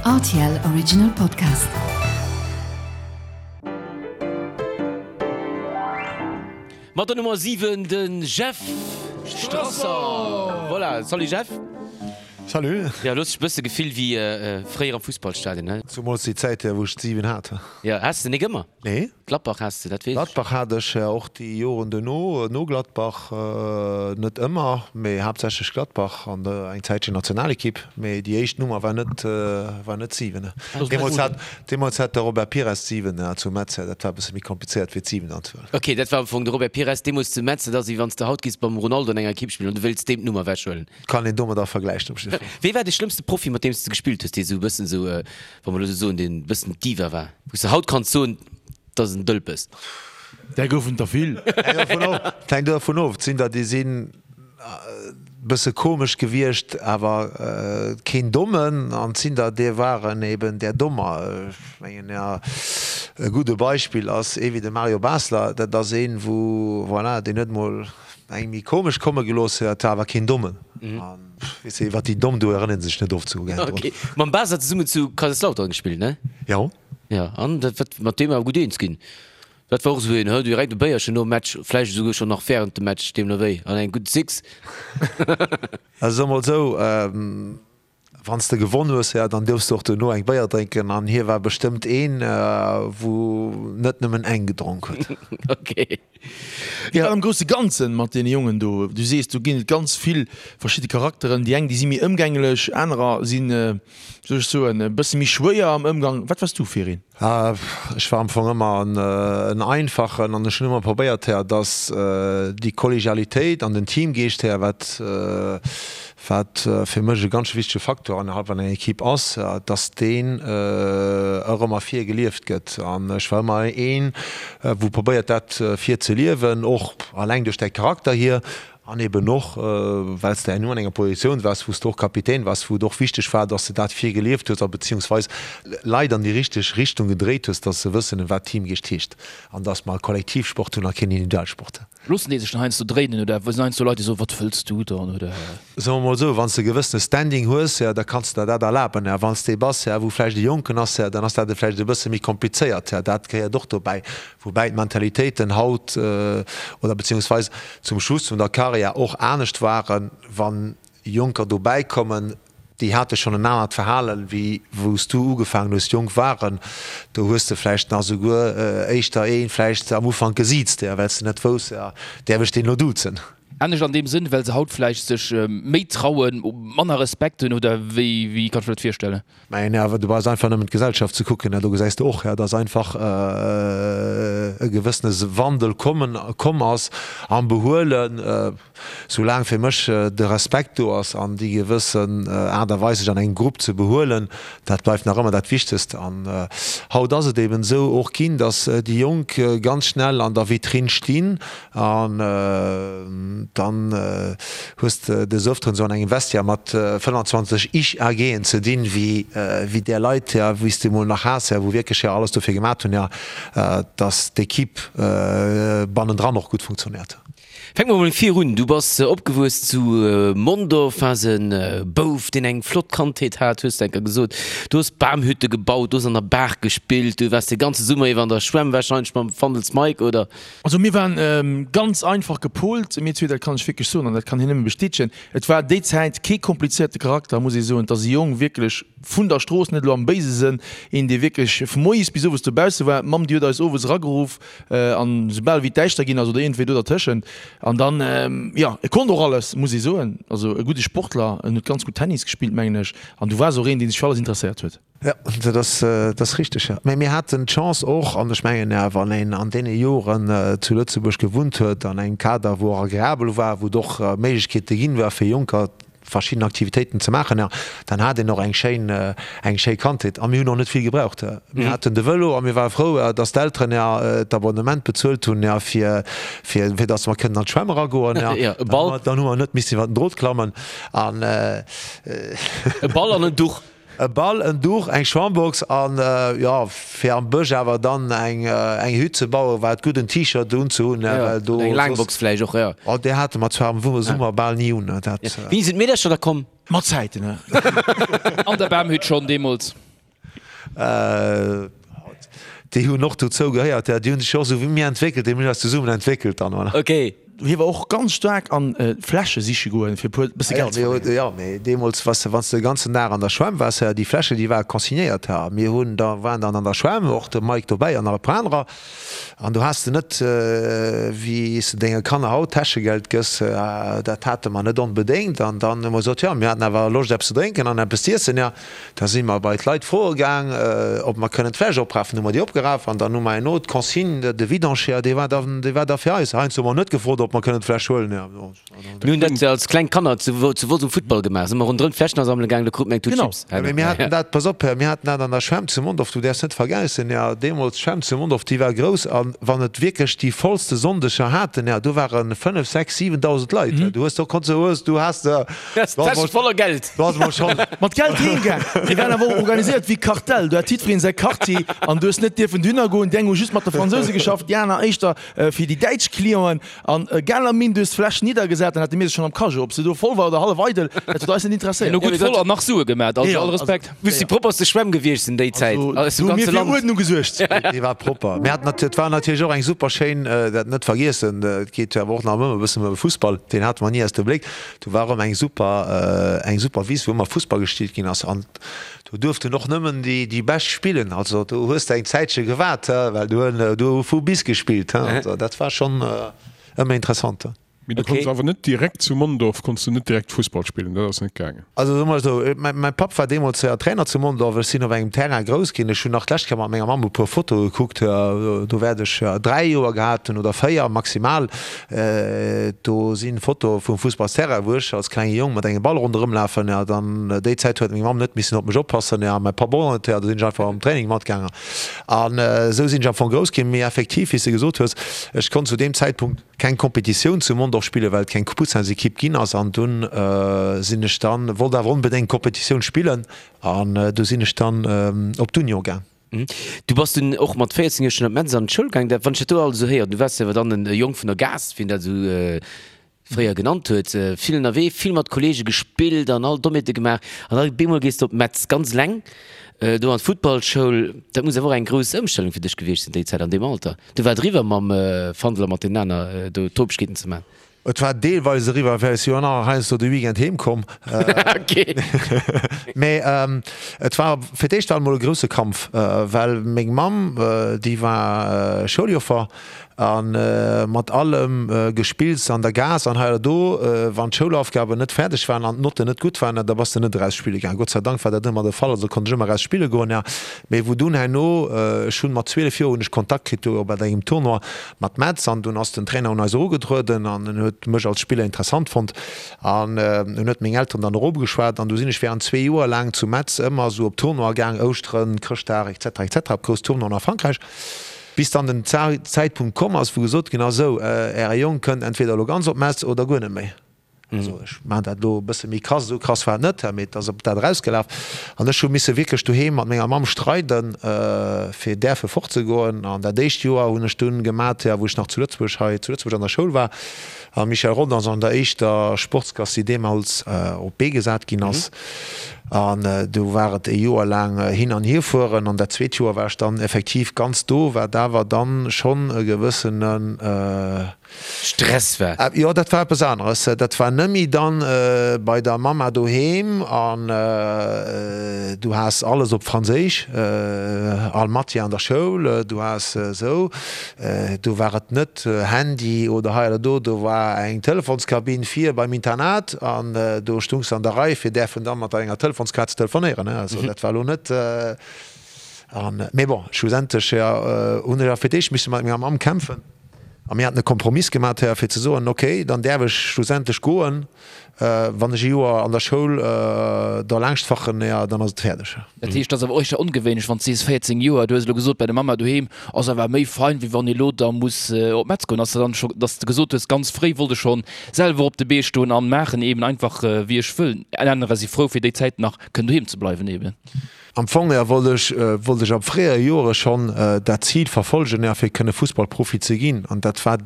Rtl Original Podcast. Mat der Nummer 7 de Jeff Strasser. Voilà, salut Jeff. Salut. Jo, lo hues dech e bësse gefillt wéi fréier am Fussballstadion, he? Zumools déi Zäit, wou ech d'7 hat. Jo, has de nik ëmmer? Nee. Gladbach has de, dat weess ech. Gladbach hat ech och déi Joren duerno, no Gladbach, net ëmmer, mee haaptsächlech Gladbach an eng Zäitchen Nationalekipp, mee déi éischt Nummer war net, war net 7. Deemools hat, deemools hat de Robert Pires d'7 zu Metz, dat war e bësse méi komplizéiert wéi d'7 dann ze huelen. Ok, dat war am Fong de Robert Pires deemools zu Metz, dat ass wéi wann s de haut giffs mam Ronaldo an enger Ekipp spillen an du wéilts deem d'Nummer ewechhuelen. Kann een domadder vergläichen op jidde Fall. Wee war dee schlëmmste Profi mat deem s de gespillt hues, dee sou e bëssen sou, wa mer elo sou soen, deen e bëssen Diva war, wou s de haut kanns soen, dat ass en Dëlpes? Där goufen der vill. Hänkt dovun of. Et sinn der, déi sinn e bësse komesch gewiescht, awer keen Dommen. An et sinn der, déi waren eben där Dommer. Ech mengen, jo, e gudde Beispill ass ee wéi de Mario Basler. Dat ass een, wou, voilà, deen huet mol eng méi komesch komme gelooss, dat war awer keen Dommen. An weess de, iwwer déi Domm do erënnert een sech net oft sou gär drun. Ok. Mam Basler zesummen zu Kaiserslautern gespillt, ne? Jo. Jo, an dat wat mat deem awer gutt eens ginn. Dat war och esou een, hë, direkt e Béierchen nom Match, vläicht esouguer schonn nach wärend dem Match, deemno wéi, an eng gutt Six. Also soe mol esou, Wann s de gewonn hues, ja, dann duerfs de och duerno eng Béier drénken. An hie war bestëmmt een, wou net nëmmen eng gedronk huet. Ok. Wéi war am grousse Ganzen mat deene Jongen do? Du sees, do ginn et ganz vill verschidde Charakteren. Déi eng, déi si méi ëmgänglech, anerer sinn, wéi soll ech soen, e bësse méi schwéier am Ëmgang. Wat waars du fir een? Ech war am Fong ëmmer en Einfachen an ech hunn ëmmer probéiert, dass déi Kollegialitéit an den Teamgeescht, wat wat fir mech e ganz wichtege Faktor innerhalb an enger Equipe ass, dass deen och ëmmer vir gelieft gëtt. An ech war ëmmer een, wou probéiert dat vir ze liewen, och alleng duerch däi Charakter hier an eben och well s de herno an enger Positioun waars, wou s de och Kapitän waars, wou et och wichteg war, dass de dat vir gelieft hues a beziehungsweis Leit an déi richteg Richtung gedréit hues, dass se wëssen, wat Teamgeescht heescht an dass mer e Kollektivsport hunn a keen Individualsport. Loossen déi sech dann heiansdo dréinen oder sinn heiansdo Leit déi soen, wat wëlls du dann oder? Soe mer mol esou, wann s de e gewëssene Standing hues, jo, da kanns de der dat erlaben. Jo, wann s de ee bass, jo, wou vläicht e Jonken ass, jo, dann ass dat vläicht e bësse méi komplizéiert. Jo, dat gehéiert och dobäi. Woubäi d'Mentalitéiten haut oder beziehungsweis zum Schluss vun der Karriär och anescht waren, wann Jonker dobäi kommen, déi hate schonn en anert Verhalen, wéi wou s du ugefaangen hues, jonk waren. Do hues de vläicht nach esouguer éischter ee vläicht am Ufank gesiezt, well s de net wousst, däerf ech deen elo duzen? Anescht an deem Sënn, well se haut vläicht sech méi trauen, manner Respekt hunn, oder wéi kann ech mir dat virstellen? Mä awer du brauchs einfach nëmmen d'Gesellschaft ze kucken, do gesäis de och, dass einfach e gewëssene Wandel kommen, komm ass am Behuelen. Soulaang fir mech de Respekt do ass an déi gewëssen Aart a Weis sech an engem Grupp ze behuelen, dat bleift nach ëmmer dat Wichtegst. An haut ass et eben esou och ginn, dass déi Jonk ganz schnell an der Vitrinn stinn An dann hues de des Öfteren esou an engem Vestiaire mat 25 Ich-AGen ze dinn, wéi wéi där Leit, jo, wéi s de emol nach has, jo, wou wierklech jo alles dofir gemat hunn, jo, dass d'Equipe bannendran och gutt funktionéiert. Fänke mer mol vir un. Du bass opgewuess zu Mondorf, waars e Bouf, deen eng flott Kandheet hat, hues de enker gesot. Du hues Bamhütte gebaut, du hues an der Baach gespillt, du waars de ganze Summer iwwer an der Schwämm, warscheinlech mam Fandels Mike, oder? Also mir waren ganz einfach gepolt, mir zwee, dat kann ech wierklech soen an dat kann hien nëmme bestätegen. Et war déi Zäit kee komplizéierte Charakter, muss ee soen. Et ass e Jong wierklech vun der Strooss, net elo am béise Sënn, een dee wierklech vu moies bis owes dobausse war. D'Mamm déi huet eis owes erageruff an soubal wéi et däischter ginn ass oder iergendwéi do dertëschent. An dann, jo, e konnt och alles, muss ee soen. Also e gudde Sportler, en huet ganz gutt Tennis gespillt, mengen ech. An du waars och een, dee sech fir alles interesséiert huet. Jo, dat ass, dat ass richteg, jo. Mä mir haten d'Chance och, an ech mengen, wann een an deene Joren zu Lëtzebuerg gewunnt huet, an engem Kader, wou och agreabel war, wou et och Méiglechkeete ginn war fir Jonker verschidden Aktivitéiten ze maachen, jo, dann hat een och eng schéin, eng schéi Kandheet. A mir hunn och net vill gebraucht. Mir haten de Vëlo a mir ware frou, dass d'Elteren jo d'Abonnement bezuelt hunn, jo, fir, fir, fir dass mer kënnen an d'Schwämm eragoen, jo. Jo, e Ball. Dann hu mer net missen iwwer den Drot klammen an. E Ball an en Duch. E Ball, en Duch, eng Schwammbox an, jo, fir am Bësch awer dann eng eng Hütt ze bauen, war et gutt en T-Shirt unzehunn, well do. Eng Laangbox vläicht och, jo. Oh, déi hate mer zwar am Summer bal ni un, dat. Wéini sinn d'Meedercher da komm? Mat Zäiten, he. An der Bamhütt schonn deemools. Déi hunn och dozou gehéiert, ja. Déi hunn sech jo och esou wéi mir entwéckelt, déi hunn eis zesummen entwéckelt dann, voilà. Ok. Hie war och ganz staark an Fläsche siche goen, fir e puer bësse Geld ze verdéngen. Jo, mee deemools, wann s de, wann s de de ganzen Dag an der Schwämm waars, déi Fläsche, déi ware consignéiert. Mir hunn da, waren dann an der Schwämm, och de Mike dobäi an nach e puer anerer, an do has de net, wéi s de denge Kanner haut Täschegeld gëss, dat hate mer net onbedéngt. An dann hu mer gesot, jo, mir haten awer Loscht eppes ze drénken an eppes z'iessen, jo. Da si mer bei d'Leit froe gaang, ob mer kënnen d'Fläsch oprafen. Hu mer déi opgeraf an dann hu mer herno d'Consigne, de Vidange, dee war dann, dee war da fir eis. Heiansdo hu mer net gefrot, ob mer kënnen d'Fläsch huelen. Mir hunn dat als kleng Kanner zu Wolz um Futtball gemaach, si mer ronderëm d'Fläschen asammele gaang, do krut mer eng Tut Chips. Genau, mee mir haten dat, pass op, mir haten dat an der Schwämm zu Mondorf, du däerfs net vergessen, jo, deemools d'Schwämm zu Mondorf, déi war grouss a wann et wierklech déi vollste Sonndeger haten, jo, do ware 5, 6, 7.000 Leit. Du hues do konns, du hues, du has de. Täsche voller Geld. Mat Geld heem gaang. Mir waren awer och organiséiert wéi Kartell. Do hat jiddwereen säi Quartier an du hues net dierfen dohinner goen. Déi eng hu just mat de Fransouse geschafft, déi aner éischter fir déi däitsch Clienten. An egal am Min, du hues d'Fläsch niddergesat, dann hate mir se schonn am Cajot. Ob se do voll war oder hallef eidel, dat huet eis net interesséiert. Elo gutt voll an nach Sue gemat, also all Respekt. Muss déi propperste Schwämm gewiescht sinn déi Zäit aus dem ganze Land. Fir Uerdnung gesuergt. Déi war propper. Mir haten natierlech, et war natierlech och eng super schéin, dat net vergiessen, et geet jo awer och nach ëmmer e bëssen ëm Fussball, deen hate mer ni aus dem Bléck. Do war erëm eng super, eng super Wiss, wou ëmmer Fussball gespillt ginn ass. An do duerften och nëmmen déi, déi Bescht spillen. Also do hues de eng Zäitche gewaart, well do hunn, do hu vu bis gespillt. Also dat war schonn ëmmer interessant. Mee du konns awer net direkt zu Mondorf konns du net direkt Fussball spillen, dat ass net gaangen. Also soe mer esou, mäi Papp war deemools Trainer zu Mondorf, ech sinn op engem Terrain grouss ginn. Ech hunn nach d'lescht Kéier mat menger Mamm e puer Fotoe gekuckt, do wäert ech 3 Joer gehat hunn oder 4 maximal. Do sinn Fotoe vum Fussballsterrain, wou ech als klenge Jong mat engem Ball ronderëm lafen. Jo, dann déi Zäit huet meng Mamm net missen op mech oppassen, jo, a mäi Papp och net. Jo, do sinn ech einfach am Training matgaangen. An esou sinn ech am Fong grouss ginn. Mee effektiv, wéi s de gesot hues, ech konnt zu deem Zäitpunkt keng Kompetitioun zu Mondorf spillen, well et keng Poussins-Ekipp ginn ass. An dunn sinn ech dann, wollt awer onbedéngt Kompetitioun spillen, an du sinn ech dann op d'Union gaang. Du bass dunn och mat 14 Joer schonn op Metz an d'Schoul gaang. Dat, wann ech dat do alles esou héieren, du waars jo awer dann e Jong vun der Gaass, wéi een dat esou fréier genannt huet, vill ënnerwee, vill mat Kollege gespillt an all Dommheete gemaach. An da bemol gees de op Metz, ganz eleng, do an d'Futtballschoul. Dat muss awer och eng grouss Ëmstellung fir dech gewiescht sinn déi Zäit, an deem Alter. Du war et eriwwer mam Fandel a mat deenen aner do Topegkeeten ze maachen. Et war deelweis eriwwer, well ech si jo nach heiansdo de Weekend heem komm. Mee et war fir d'éischt war et mol e grousse Kampf, well meng Mamm, déi war Schouljoffer a mat allem Gespills an der Gaass an hei oder do, wann d'Schoulaufgaben net fäerdeg waren an d'Notten net gutt waren, da bass de net eraus spille gaangen. Gott sei Dank war dat ëmmer de Fall, also konnt ech ëmmer eraus spille goen. Mee wou dunn herno, ech hunn mat 12 Joer hunn ech Kontakt kritt do bei engem Tournoi, Mat Metz an dunn ass den Trainer un eis erugetrueden an en huet mech als Spiller interessant fonnt an en huet meng Elteren dann eropgeschwat an du sinn ech während zwee Joer laang zu Metz ëmmer esou op Tournoie gaang, Ouschteren, Chrëschtdag etc etc op grouss Tournoien a Frankräich, bis dann den Zäitpunkt komm ass wou gesot ginn ass, esou äre Jong kënnt entweder elo ganz op Metz oder guer net méi. Also ech maachen dat elo e bësse méi krass, esou krass war et net, mee et ass op dat erausgelaf. An ech hu misse wierklech doheem mat menger Mamm streiden, fir däerfe fortzegoen. An dat éischt Joer hunn ech dunn gemat, jo, wou ech nach zu Lëtzebuerg, hei zu Lëtzebuerg an der Schoul war. A Michel Rodange an der éischter Sportsklass, déi deemools op d'Bee gesat ginn ass. An do war et e Joer laang hin an hierfueren. An dat zweet Joer war ech dann effektiv ganz do, wat awer dann schonn e gewëssenen, Stress war. Jo, dat war eppes aneres. Dat war nëmmi dann bei der Mamma doheem an du has alles op Franséisch, all Matière an der Schoul, du has esou, do war et net Handy oder hei oder do, do war eng Telefonskabinn vir beim Internat an do stungs de an der Rei fir däerfen dann mat enger Telefonskaart ze telefonéieren. Also dat war elo net an, mee bon, schlussendlech hunn ech awer fir d'éischt misse mat menger Mamm kämpfen. A mir haten e Kompromiss gemat, Här, fir ze soen, okay, dann däerf ech schlussendlech goen, wann ech e Joer an der Schoul derlaanscht fachen, jo, dann ass et fäerdeg. Dat heescht, dat ass awer och éischter ongewéinlech, wann s de sees 14 Joer, du hues elo gesot, bei der Mamma doheem ass awer méi fein, wéi wann ee lo da muss op Metz goen. Ass dat dann scho, datt s de gesot hues, ganz fréi wollt ech schonn selwer op de Bee stoen an maachen eben einfach wéi ech wëll? Anerer si frou fir déi Zäit nach kënnen doheem ze bleiwen eben. Am Fong jo wollt ech wollt ech ab fréiere Joere schonn dat Zil verfolgen, jo fir kënne Fussballprofi ze ginn. An dat war.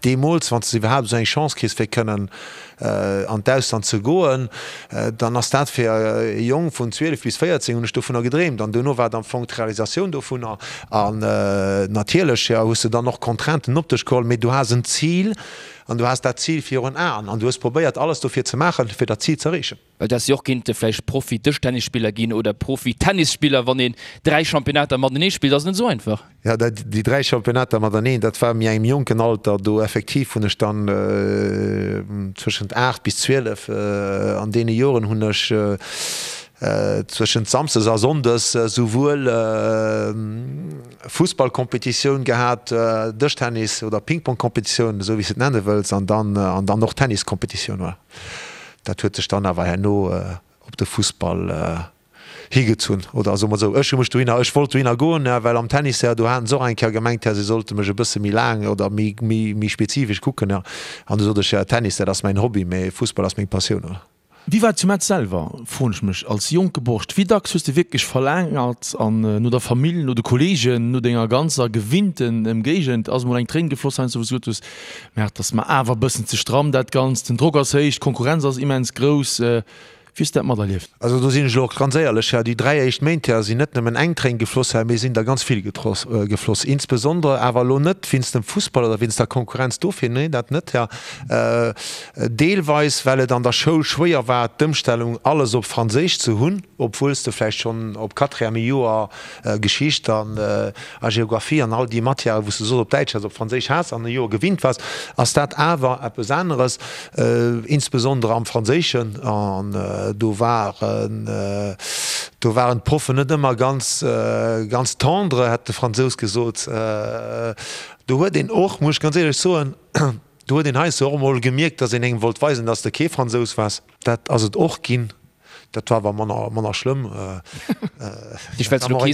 Deemools, wann s de iwwerhaapt esou eng Chance kriss, fir kënnen an d'Ausland ze goen, dann ass dat fir e Jong vun 12 bis 14, hunn ech dovunner gedreemt. An duerno war et am Fong d'Realisatioun dovunner. An natierlech, jo, hues de dann och Contrainten op dech geholl, mee du has en Zil an du has dat Zil virun Aen an du hues probéiert, alles dofir ze maachen, fir dat Zil ze erreechen. Well dass si och kinnte vläicht Profi-Dëschtennisspiller ginn oder Profi-Tennisspiller, wann een 3 Championnater matenee spillt, ass net esou einfach. Jo, déi 3 Championnater mateneen, dat war méi engem jonken Alter. Do effektiv hunn ech dann zwëschent 8 bis 12, an deene Joren hunn ech zwëschent Samsdes a Sonndes souwuel Fussballkompetitioun gehat, Dëschtennis oder Ping-Pong-Kompetitioun, esou wéi s de et nenne wëlls, an dann an dann och Tenniskompetitioun. Voilà. Dat huet sech dann awer herno op de Fussball higezunn, oder soe mer esou, ech hu mech dohinner, ech wollt dohinner goen, well am Tennis, do haten se och eng Kéier gemengt, se sollte mech e bësse méi laang oder méi, méi, méi spezifesch kucken. An du sot ech, jo, Tennis, dat ass mäin Hobby, mee Fussball ass meng Passioun, oder? Wéi war et zu Metz selwer, froen ech mech, als jonke Borscht? Wéi dacks hues de wierklech verlaangert an no der Famill, no de Kolleegen, no denger ganzer gewinnten Ëmgéigend? Ass emol eng Tréin gefloss heiansdo, wou s de gesot hues, Mä et ass mer awer e bëssen ze stramm dat Ganzt, den Drock ass héich, d'Konkurrenz ass immens grouss. Wéi hues de dat materlieft? Also do sinn ech elo och ganz éierlech, Här, déi 3 éischt Méint, Här, sinn net nëmmen eng Tréin gefloss, Här, mee sinn der ganz vill gefloss. Insbesondere awer elo net wéinst dem Fussball oder wéinst der Konkurrenz dofir, nee, dat net, Här, deelweis well et an der Schoul schwéier war d'Ëmstellung alles op Franséisch ze hunn, obwuel s de vläicht schonn op Quatrième Joer Geschicht an a Geographie an all déi Matièren, wou s de soss op Däitsch has, op Franséisch has an e Joer gewinnt waars, ass dat awer eppes aneres, insbesondere am Franséischen. An do waren, do waren d'Proffen net ëmmer ganz, ganz tendre, hätt de Fransous gesot. Do huet een och, muss ech ganz éierlech soen, do huet een heiansdo och emol gemierkt, datt een engem wollt weisen, datt s de kee Fransous waars. Dat ass et och ginn. Dat war awer manner, manner schlëmm. Ech well elo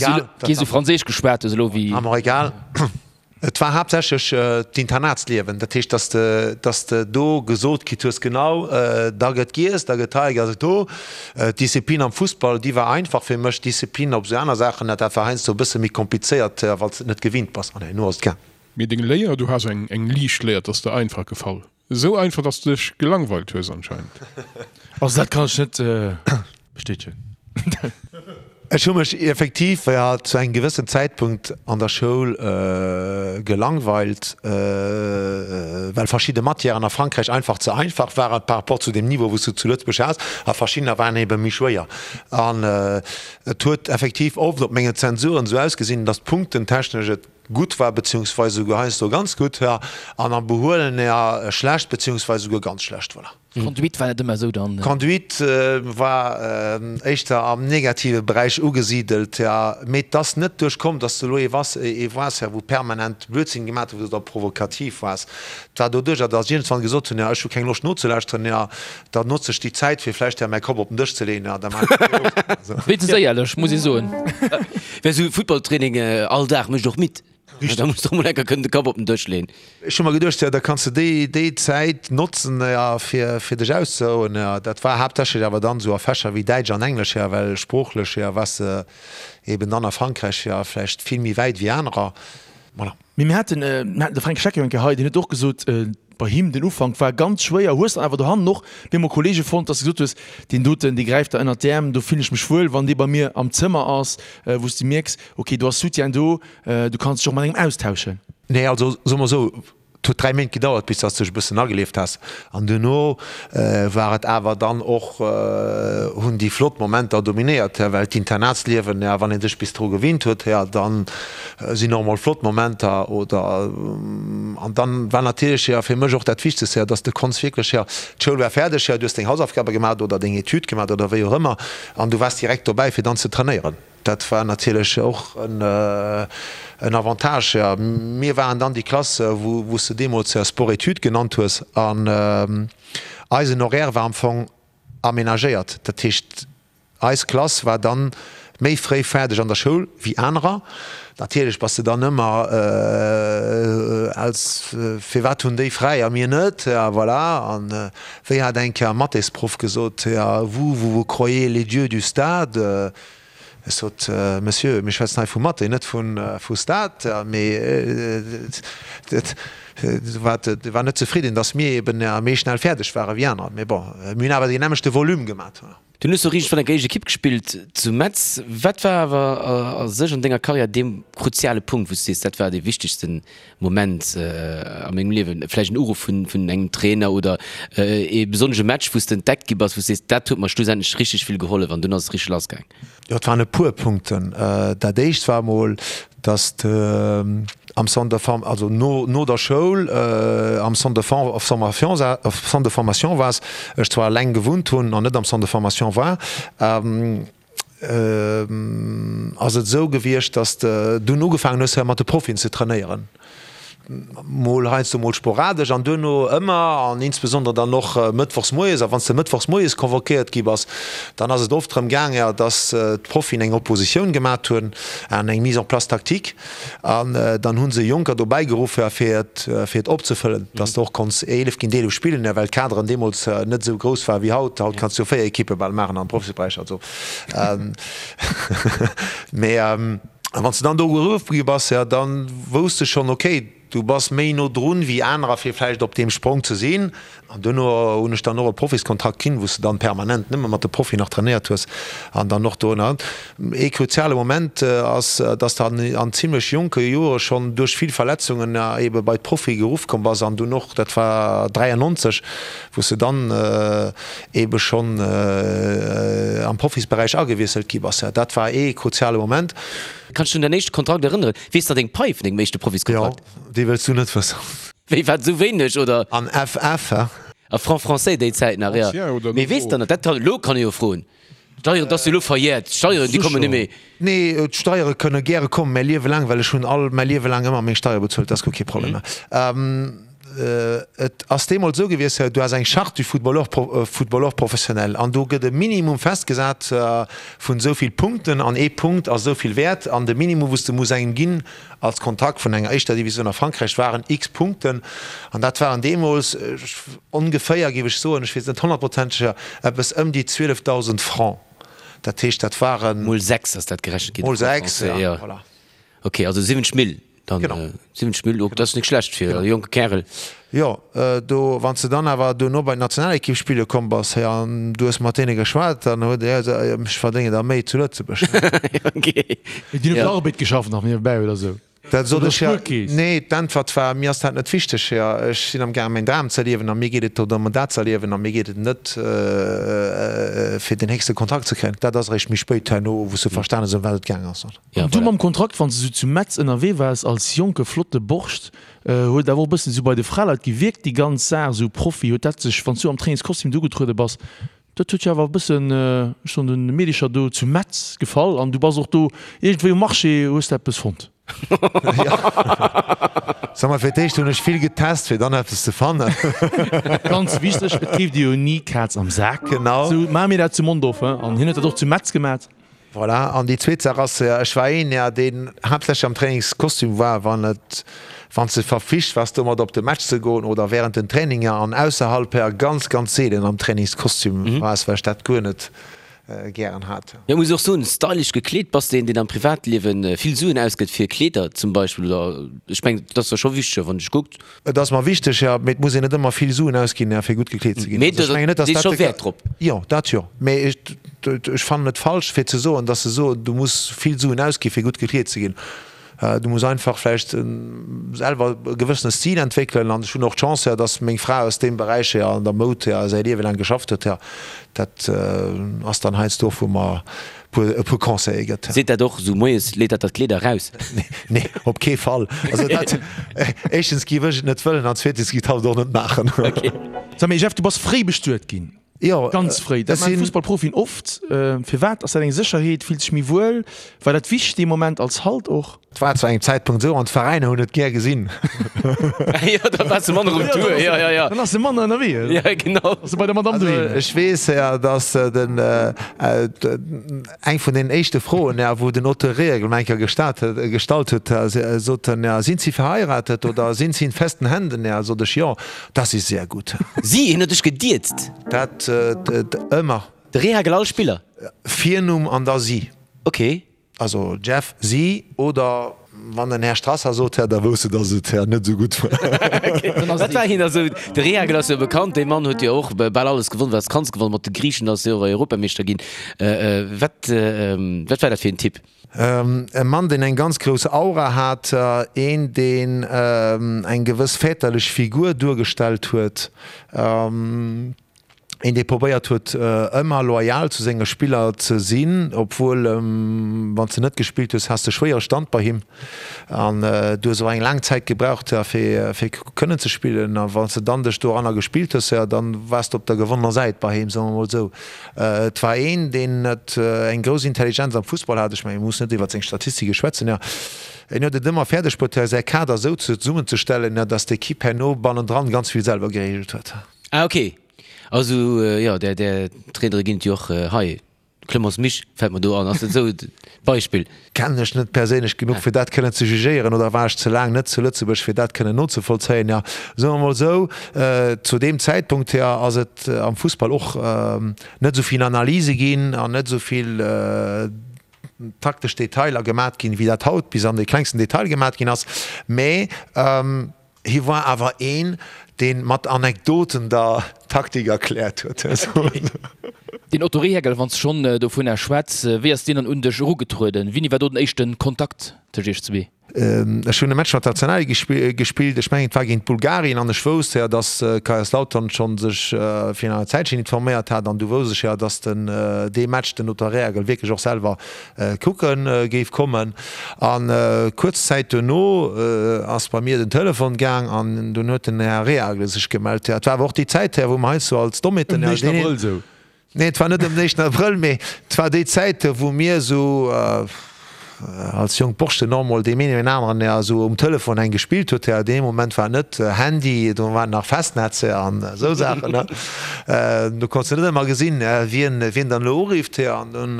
kee sou franséisch geschwat hues elo wéi. War mer egal. Et war haaptsächlech d'Internatsliewen. Dat heescht, dass de, dass de do gesot kritt hues, genau, da gëtt giess, da gëtt hei, da gëtt do. D'Disziplin am Fussball, déi war einfach fir mech. D'Disziplin op esou aner Saachen, dat war heiansdo e bësse méi komplizéiert, well s de et net gewinnt bass. An herno ass et gaang. Mee deng Léier, du has eng, eng liicht Léier, 't ass der einfach gefall. Esou einfach, dass du dech gelangweilt hues anscheinend. Also dat kann ech net bestätegen. Ech hu mech effektiv jo zu engem gewëssen Zäitpunkt an der Schoul gelangweilt, well verschidde Matièren a Frankräich einfach ze einfach waren par rapport zu dem Niveau wou s du zu Lëtzebuerg has, a verschiddener waren ebe méi schwéier. An et huet effektiv oft op mengen Zensuren esou ausgesinn, dass d'Punktentechnesch et gutt war, beziehungsweise souguer heiansdo ganz gutt, ja, an am Behuelen eher schlecht, beziehungsweise souguer ganz schlecht, voilà. D'Conduite war net ëmmer esou dann? D'Conduite war éischter am negative Beräich ugesidelt, ja, mee 't ass net duerch komm, dass de elo ee wass, ee waars, ja, wou permanent Blödsinn gemaat huet oder provokativ waars. 't war doduercher, dass ech iergendwann gesot hunn, ja, ech hu keng Loscht nozelauschteren, ja, da notze ech déi Zäit, fir vläicht ja mäi Kopp op den Dësch ze leeën, ja, da maachen ech dat och. Wéinstens éierlech, muss ee soen. Well sou Footballtraining all Dag mécht och midd. Da muss de och mol enker kënnen de Kapp op den Dësch leen. Ech hu mer geduecht, jo, da kanns de déi, déi Zäit notzen, jo, fir, fir dech auszerouen, jo. Dat war haaptsächlech awer dann esou a Fächer wéi Däitsch an Englesch, jo, well sproochlech, jo, waars de eben dann a Frankräich, jo, vläicht vill méi wäit wéi anerer. Voilà. Mee mir haten, mir haten de Fränk Schleck jo eng Kéier hei, deen huet och gesot, bei him den Ufank war ganz schwéier. Hues dann awer dohannen och bemol Kollege fonnt, dass de gesot hues, deen doten, dee gräift der ënnert d'Äerm, do fillen ech mech wuel, wann dee bei mir am Zëmmer ass, wou s de mierks, okay, do ass Soutien do, du kanns dech och mat engem austauschen. Nee, also soe mer esou, et huet 3 Méint gedauert, bis dass de dech e bëssen agelieft has. An duerno war et awer dann och, hunn déi flott Momenter dominéiert, well d'Internatsliewen, ja, wann ee sech bis dru gewinnt huet, ja, dann sinn och mol flott Momenter oder an dann war natierlech jo fir mech och dat Wichtegste jo, dass de konns wierklech jo, d'Schoul war fäerdeg jo, du hues deng Hausaufgabe gemaach oder deng Etüd gemaach oder wéi och ëmmer an du waars direkt dobäi fir dann ze trainéieren. Dat war natierlech och en en Avantage jo. Mir waren dann déi Klass wou wou s de deemools jo Sport-Études genannt hues an eisen Horaire war am Fong aménagéiert, dat heescht Eis Klass war dann méi fréi fäerdeg an der Schoul wéi anerer. Natierlech bass de dann ëmmer als, firwat hunn déi fräi a mir net? Ja voilà. An wéi hat eng Kéier e Mathésproff gesot, ja vous, vous vous croyez les dieux du stade? Ech sot, Monsieur, mir schwätzen hei vu Mathé, net vu Stat. Mee e war net zefridden, datt mir eben méi schnell fäerdeg ware wéi anerer. Mee bon, mir hunn awer deen nämmlechte Volume gemat. Dunn hues du riicht vun der éischt Ekipp gespillt zu Metz. Wat war awer a sech an denger Karriär dee kruziale Punkt, wou s du sees, dat war dee wichtegste Moment a mengem Liewen? Vläicht en Uruff vun engem Trainer oder ee besonnesche Match, wou s de entdeckt gi bass, wou s sees, dat huet mer schlussendlech richteg vill gehollef an dunn ass et richteg lassgaang? Jo, et waren e puer Punkten. Dat éischt war emol, datt de am Centre de form, also no no der Schoul am Centre de formation, Centre de formation waars, ech zwar eleng gewunnt hunn an net am Centre de formation war, ass et esou gewiescht, datt de dunn ugefaangen hues mat de Profien ze trainéieren. Mol heiansdo, mol sporadesch an duerno ëmmer an insbesondere dann och mëttwochs moies. A wann s de mëttwochs moies convoquéiert gi bass, dann ass et oft drëm gaang, jo, dass d'Profien eng Oppositioun gemat hunn an eng Mise en place tactique an dann hu se Jonker dobäi geruff, jo, fir et, fir et opzefëllen, dass de och konns 11 géint 11 spillen, jo, well d'Kaderen deemools net esou grouss ware wéi haut. Haut kanns du jo 4 Ekippe bal maachen am Profisberäich, also mee. A wann s de dann do geruff gi bass, jo, da wousst de schonn, okay, du bass méi no drun wéi anerer, fir vläicht op deem Sprong ze sinn. An duerno hunn ech dann och e Profiskontrakt kinn, wou s de dann permanent nëmme mat de Profien nach trainéiert hues an dann och do. Ee kruziale Moment ass, dass de an an zimlech jonke Jore schonn duerch vill Verletzungen ebe bei d'Profie geruff komm bass an dunn och, dat war 93, wou s de dann ebe schonn am Profisberäich agewiesselt gi bass. Dat war ee kruziale Moment. Kanns du dech un däin éischte Kontrakt erënneren? Weess nach deng Pai vun dengem éischte Profiskontrakt? Jo, déi wëlls du net wëssen. Wéi, wat, esou wéineg, oder? An FF, he? A Franc français déi Zäit nach, jo. Mee weess der nach, dat kann, elo kann ee jo froen. D'Steieren, dat ass jo elo verjährt, d'Steieren, déi kommen net méi. Nee, d'Steiere kënne gäre kommen, mäi Liewe laang, well ech hunn all mäi Liewe laang ëmmer meng Steiere bezuelt, dat ass guer kee Problem. Et ass deemools esou gewiescht, du has eng Charte du footballeur, footballeur professionnel an do gëtt e Minimum festgesat vun esou vill Punkten an ee Punkt ass esou vill wäert an de Minimum wou s de muss engem ginn als Kontrakt vun enger éischter Divisioun a Frankräich waren x Punkten an dat waren deemools ongeféier, géif ech soen, ech weess et net honnertprozenteg, eppes ëm déi 12.000 Francs. Dat heescht, dat waren. Mol 6 ass dat gerechent ginn. Mol 6, ja, voilà. Ok, also 70 Mille dann. Genau. 70 Mille, ok, dat ass net schlecht fir e jonke Kärel. Jo, do, wann s de dann awer duerno bei d'Nationalekipp spille komm bass, hei, an du hues mat deene geschwat, dann huet e gesot, ech verdéngen der méi zu Lëtzebuerg. Ok. Déi hunn op der Arbed geschafft nach niewebäi oder sou. Dat sot ech, jo. Nee, d'Äntwert war, Mir ass dat net wichteg, jo. Ech sinn am gaangen, mäin Dram ze erliewen a mir geet et dorëm, dat ze erliewen a mir geet et net, fir den héchste Kontrakt ze kréien. Dat ass eréischt méi spéit herno, wou s de verstanen hues, ëm wat et gaang ass. An du mam Kontrakt, wann s de sou zu Metz ënnerwee waars als jonke flotte Borscht, huet awer och e bëssen sou bei de Fraleit gewierkt déi ganz Saach, sou Profi, huet dat sech, wann s du am Trainingskostüm do ugetruede bass, Dat huet jo awer e bëssen, ech soen, den Meedecher do zu Metz gefall an du bass och do iergendwéi um Marché, hues de eppes fonnt? Sag mal, fir d'éischt hunn ech vill getest, fir dann eppes ze fannen. Ganz wichteg, et keeft ee jo ni Kaz am Sak. Genau. Sou maache mir dat zu Mondorf, he, an hien huet dat och zu Metz gemat. Voilà, an déi zweet Saach ass, ech war een, ja, deen haaptsächlech am Trainingskostüm war, wann et, wann s de verflicht waars domat op de Match ze goen oder während den Traininger an ausserhalb her ganz, ganz seelen am Trainingskostüm waars, well ech dat guer net gären hat. Jo, muss och soen, stylish gekleet. Bass de een, deen am Privatliewen vill Suen ausgëtt fir Kleeder zum Beispill oder? Ech mengen, dat ass der scho wichteg, wann dech kuckt. Et ass mer wichteg, jo, mee et muss een net ëmmer vill Suen ausginn, fir gutt gekleet ze ginn. Mee also, ech mengen net, dass dat scho Wäert drop. Jo, dat jo. Mee ech, ech fannen et falsch, fir ze soen, dass se soen, du muss vill Suen ausgi fir gutt gekleet ze ginn. Du muss einfach vläicht selwer e gewëssene Stil entwéckelen. An ech hunn och d'Chance, dass meng Fra aus deem Beräich jo an der Moud säi Liewe laang geschafft huet. Dat ass dann heiansdo och, wou mer e puer Conseile gëtt. Seet dat och esou moies, leet dat der d'Kleeder eraus? Nee, op kee Fall. Also dat, éischtens géif ech et net wëllen an zweetens géif hatt et och net maachen. Okay. Sag mee Jeff, du bass fréi bestuet ginn. Jo. Ganz fréi. Dat maachen Fussballprofien oft. Firwat? Ass dat eng Sécherheet? Fills dech méi wuel? War dat wichteg dee Moment als Halt och? Et war zu engem Zäitpunkt esou, an d'Veräiner hunn et gär gesinn. Jo, da waars de manner um Tour, jo, jo, jo. Dann ass de manner ënnerwee. Ja, genau. Ass de bei der Madame doheem. Also ech weess, jo, datt den, eng vun den éischte Froen, jo, wou den Otto Rehhagel mer eng Kéier gestat huet, gestallt huet, sot en, jo, Sind Sie verheiratet oder sind Sie in festen Händen? Jo, sot ech, jo, das ist sehr gut. Si, hien huet dech gediezt? Dat ëmmer. De Rehhagel all Spiller? Virnumm an da Si. Ok. Also Jeff, si oder wann den Här Strasser sot, Här, da wousst de, datt et Här net esou gutt war. Wat war hien da sou? De Rehhagel ass jo bekannt, dee Mann huet jo och bal alles gewonn, wat s kanns gewannen. Mat de Griichen ass hie och Europameeschter ginn. Wat, wat war dat fir en Typ? E Mann, deen eng ganz grouss Aura hat, een, deen eng gewëss väterlech Figur duergestallt huet. Een dee probéiert huet ëmmer loyal zu senge Spiller ze sinn, obwuel wann s de net gespillt hues, has de schwéiere Stand bei him an du hues och eng laang Zäit gebraucht fir fir kënnen ze spillen a wann s de dann dech doranner gespillt hues, jo dann waars de op der gewonnener Säit bei him, soe mer mol esou. Et war een deen et eng grouss Intelligenz am Fussball hat, ech mengen mir mussen net iwwert seng Statistike schwätzen, jo en huet et ëmmer fäerdeg bruet säi Kader esou zesummenzestellen, datt d'Ekipp herno bannendran ganz vill selwer gereegelt huet. Ah ok, also jo där där Trainere ginn et jo och hei. Clemence Misch fält mer do an, ass dat esou e Beispill? Kennen ech net perséinlech genuch fir dat kënnen ze jugéieren oder war ech ze laang net zu Lëtzebuerg fir dat kënnen nozevollzéien. Jo, soe mer mol esou, zu deem Zäitpunkt hier ass et am Fussball och net esou vill Analyse ginn an net esou vill taktesch Detailer gemat ginn, wéi dat haut bis an de klengsten Detail gemat ginn ass, mä Hie war awer een, deen mat Anekdoten der Taktik erkläert huet. Den Otto Rehhagel, wann s de schonn dovunner schwätz, wéi ass deen dann un dech erugetrueden? Wéini war do den éischte Kontakt tëscht iech zwee? Ech hunn e Match mat der Nationalequipe gespillt, ech mengen et war géint Bulgarien an ech wousst jo, datt Kaiserslautern schonn sech virun enger Zäitchen informéiert hat an du wousst ech jo, datt den dee Match den Otto Rehhagel wierklech och selwer kucke géif kommen. An kuerz Zäit duerno ass bei mir den Telefon gaang an dunn huet den Här Rehagel sech gemellt. Et war awer och déi Zäit, wou mer heiansdo als Dommeten. Ëm den éischten Abrëll esou? Nee, et war net ëm den éischten Abrëll, mee et war déi Zäit, wou mir esou als jonk Borschten och mol deem een oder aneren esou um Telefon eng gespillt huet. Dee Moment war net Handy, do war nach Festnetz an esou Saachen. Do konns de net ëmmer gesinn, wien wien dann elo urifft. An dunn,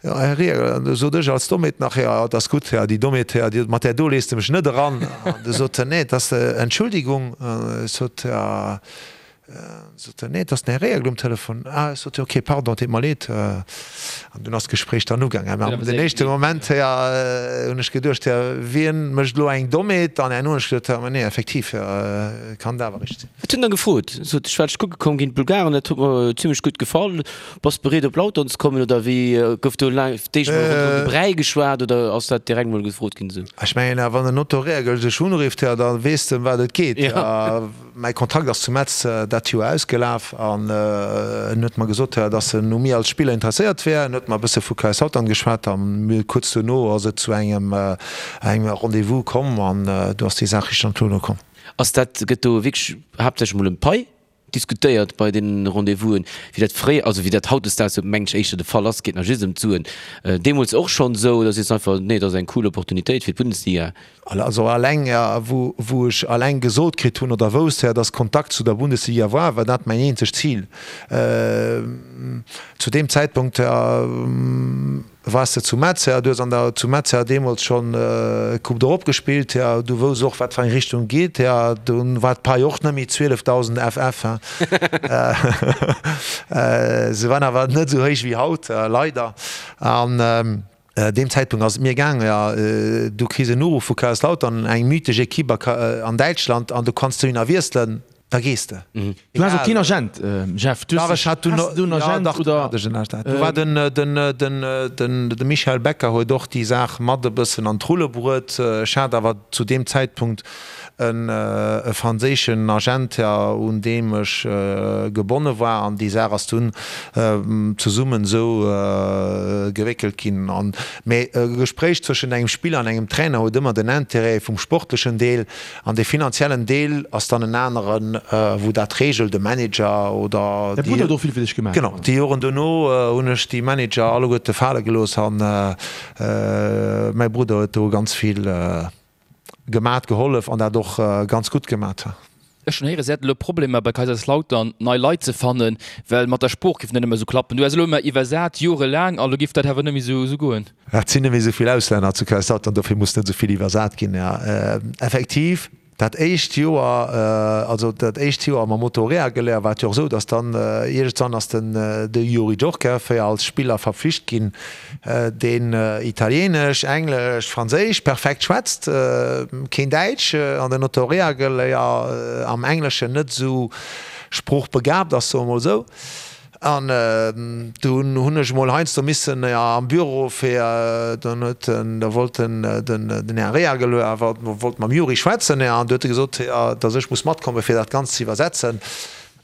jo, Här Rieger, an du sot ech als Dommheet nach, jo, et ass gutt, jo, déi Dommheet, jo, déi, mat där do lees de mech net eran. An du sot en, nee, et ass, Entschuldigung, ech sot, jo, sot en, nee, et ass den Här Rieger um Telefon. Ah, ech sot, jo, okay, pardon, et deet mer leed. An dunn ass d'Gespréich dann ugaangen. Mä den éischte Moment, jo, hunn ech geduecht, jo, wien mécht elo eng Dommheet? An herno hunn ech geduecht, jo, mä nee, effektiv, jo, kann dat awer richteg sinn. Wat hunn der gefrot? Sot ech war dech kucke komm géint d'Bulgaren, dat huet mer zimlech gutt gefall. Bass bereet op Lautern ze kommen oder wéi? Gouf do laang d'éischt mol ronderëm de Bräi geschwat oder ass dat direkt mol gefrot ginn esou? Ech mengen, wann den Otto Rehhagel dech unrifft, jo, da weess de ëm wat et geet. Mäi Kontrakt ass zu Metz dat Joer ausgelaf an en huet mer gesot, dass en u mir als Spiller interesséiert wär. En huet mer e bësse vu Kaiserslautern geschwat a kuerz duerno ass et zu engem Rendez-vous komm an do ass déi Saach richteg an d'Rulle komm. Ass dat, gëtt do wierklech haaptsächlech mol ëm d'Pai diskutéiert bei deenen Rendez-vousen, wéi dat fréier, also wéi dat hautdesdaags jo mengen ech éischter de Fall ass, geet nach just ëm d'Suen, deemools och schonn esou oder sees de einfach, nee, et ass eng cool Opportunitéit fir d'Bundesliga? Also alleng, wou wou ech alleng gesot kritt hunn oder wousst, dass Kontakt zu der Bundesliga war, war dat mäin eenzegt Zil. Zu deem Zäitpunkt Wars de zu Metz, ja, du hues an der zu Metz ja deemools schonn Coupe d'Europe gespillt, ja, du wouss och wat fir eng Richtung et geet, ja, dunn war d'Pai och net méi 12.000 FF, hein. Se waren awer net esou héich wéi haut, leider. An deem Zäitpunkt ass et mir gaang, ja, du kriss en Uruff vu Kaiserslautern, eng mythesch Equipe a an Däitschland, an du kanns dohinner wiesselen. Da gees de. Du has och keen Agent, Jeff? Du Dach, ech hat dunn, has du en Agent ja, dach, oder? Hat ech en Agent. Do war den, den, den, den, de Michel Becker huet och déi Saach mat e bëssen an d'Rulle bruet. Ech hat awer zu deem Zäitpunkt en, e franséischen Agent, ja, un deem ech gebonne war an déi Saach ass dunn zesummen esou gewéckelt ginn. An, mee e Gespréich zwëschent engem Spiller an engem Trainer huet ëmmer den Intérêt vum sportlechen Deel. An dee finanziellen Deel ass dann en aneren, wou dat regelt, e Manager oder Däi Brudder huet och vill fir dech gemaach. Genau, déi Joren dono hunn ech déi Manager alleguerte fale gelooss an mäi Brudder huet do ganz vill gemat, gehollef an dat och ganz gutt gemat. Ech hunn héieren, se hätten elo Problemer bei Kaiserslautern nei Leit ze fannen, well mat der Sprooch géif net ëmmer esou klappen. Du häss elo ëmmer iwwersat, jorelaang, a lo géif dat awer net méi esou goen. Et sinn net méi esou vill Auslänner zu Kaiserslautern, dofir muss net esou vill iwwersat ginn. Jo, effektiv. Dat éischt Joer, also dat éischt Joer mam Otto Rehhagel, war et jo och esou, datt dann iergendwann ass den de Youri Djorkaeff jo als Spiller verpflicht ginn, deen Italienesch, Englesch, Franséisch perfekt schwätzt, keen Däitsch, an den Otto Rehhagel jo am Engleschen net esou sproochbegabt ass, soe mer mol esou. An dunn hunn ech emol heiansdo missen am Büro fir, dann huet en, da wollt den, den Här Rehagel awer, wollt mam Yuri schwätzen, an du huet e gesot, datt ech muss matkomme fir dat Ganzt ze iwwersetzen.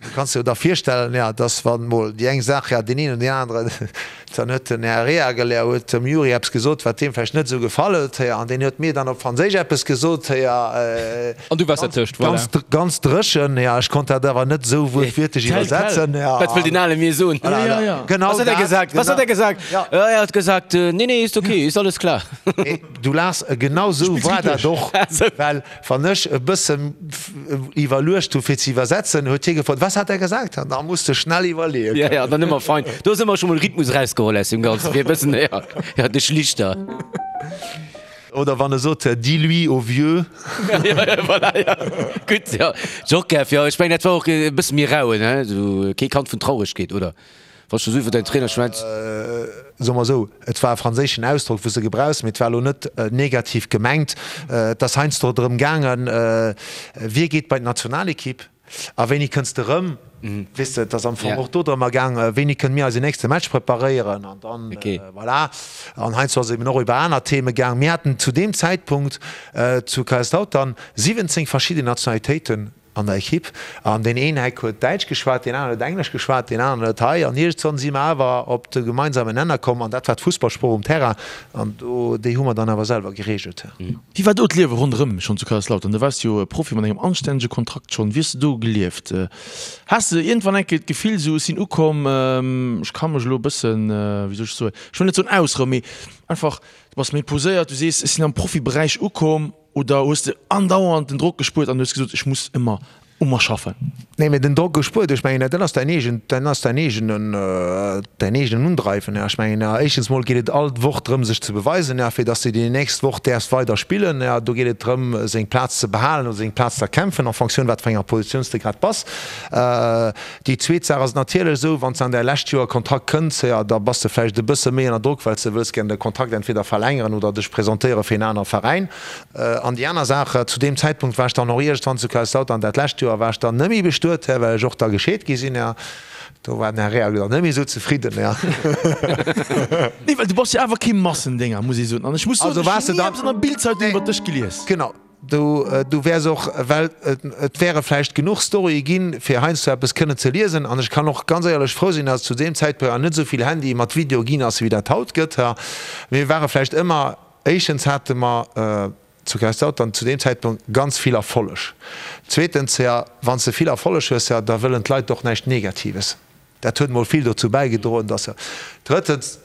Du kanns dir jo da virstellen, datt wann emol déi eng Saach, deen een oder deen aneren, dann huet den Här Rehagel, huet dem Yuri eppes gesot, wat deem vläicht net esou gefall huet, an deen huet mir dann op Franséisch eppes gesot. An du waars dertëscht, voilà. Ganz, ganz dréchen, ja. Ech konnt dat awer net esou wuertwiertlech iwwersetzen, ja. Wat wëll den Ale mir soen? Ja, ja, ja. Genau Was hat er gesagt? Was hat er gesagt? Ja. Er hat gesagt, nee, nee, ist okay, ist alles klar. Du laachs, genau esou war dat och, well wann ech e bëssen iwwerluecht hu fir ze iwwersetzen, huet hie gefrot, Was hat er gesagt? An da muss de schnell iwwerleeën. Ja, ja, dann ëmmer fein. Do hues ëmmer scho mol Rhythmus erausgeholl aus deem Ganzen, fir e bëssen, ja, ja, de Schlichter. Oder wann e sot, Dis-lui au vieux. Voilà, ja. Gutt, ja. Djorkaeff, jo, ech mengen, dat war och e bësse méi rauen, he? Esou kee Kand vun Trauregkeet, oder? Wann s du esou iwwer däin Trainer schwätz. Soe mer esou, et war e franséischen Ausdrock, wou s de gebrauchs, mee et war elo net negativ gemengt. Et ass heiansdo drëm gaangen, wie geet bei d'Nationalekipp? A wéini kënns de rëm? Weess de, et ass am Fong och do drëmmer gaang, wéini kënne mir eisen nächste Match preparéieren? An dann, voilà. An heiansdo ass et eben och iwwer aner Theme gaang. Mir haten zu deem Zäitpunkt zu Kaiserslautern 17 verschidden Nationalitéiten an der Ekipp. An deen een Heck huet Däitsch geschwat, deen aneren huet Englesch geschwat, deen aneren huet hei. An iergendwann si mer awer op de gemeinsamen Nenner komm, an dat war d'Fussballsprooch um Terrain. An do, déi hu mer dann awer selwer gereegelt. Wéi war do d'Liewe ronderëm schonn zu Kaiserslautern? Du waars jo Profi mat engem anstännege Kontrakt schonn. Wéi hues de do gelieft? Has de iergendwann eng Kéier d'Gefill esou, ech sinn ukomm, ech ka mech elo e bëssen, wéi soll ech soen, ech wëll net soen ausrouen, mee einfach, du bass méi poséiert, du sees, ech sinn am Profiberäich ukomm, oder hues de andauernd den Drock gespuert an hues gesot, ech muss ëmmer u mer schaffen. Nee, mee den Drock gespuert, ech mengen, dat ass däin eegen, dat ass däin eegenen, däin eegenen Undreiwen. Ech mengen, éischtens mol geet et all Woch drëm, sech ze beweisen, fir datt s de déi nächst Woch däerfs weider spillen. Do geet et drëm, seng Plaz ze behalen oder seng Plaz ze erkämpfen, en Fonctioun wat fir enger Positioun s de grad bass. Déi zweet Saach ass et natierlech esou, wann s de an däi lescht Joer Kontrakt kënns, da bass de vläicht e bësse méi ënner Drock, well s de wëlls gär de Kontrakt entweder verlängeren oder dech presentéiere fir en anere Veräin. An déi aner Saach, zu deem Zäitpunkt war ech dann och iergendwann zu Kaiserslautern, dat lescht Joer war ech dann net méi bestuet, well ech och da gescheet gi sinn. Do war den Här Rehagel dann net méi esou zefridden. Nee, well du bass jo awer kee Massendénger, muss ee soen. An ech muss soen, ech hunn ni eppes an der Bildzeitung iwwer dech gelies. Genau, du, du wäers och, well et wäre vläicht genuch Storye ginn, fir heiansdo eppes kënnen ze liesen. An ech kann och ganz éierlech frou sinn, datt et zu deem Zäitpunkt nach net esou vill Handye mat Video ginn ass, wéi dat haut gëtt. Mir ware vläicht ëmmer Éischtens hate mer zu Kaiserslautern zu deem Zäitpunkt ganz vill Erfolleg. Zweetens, jo, wann s de vill Erfolleg hues, jo, da wëllen d'Leit och näischt Negatives. Dat huet mol vill dozou bäigedroen, dass. Drëttens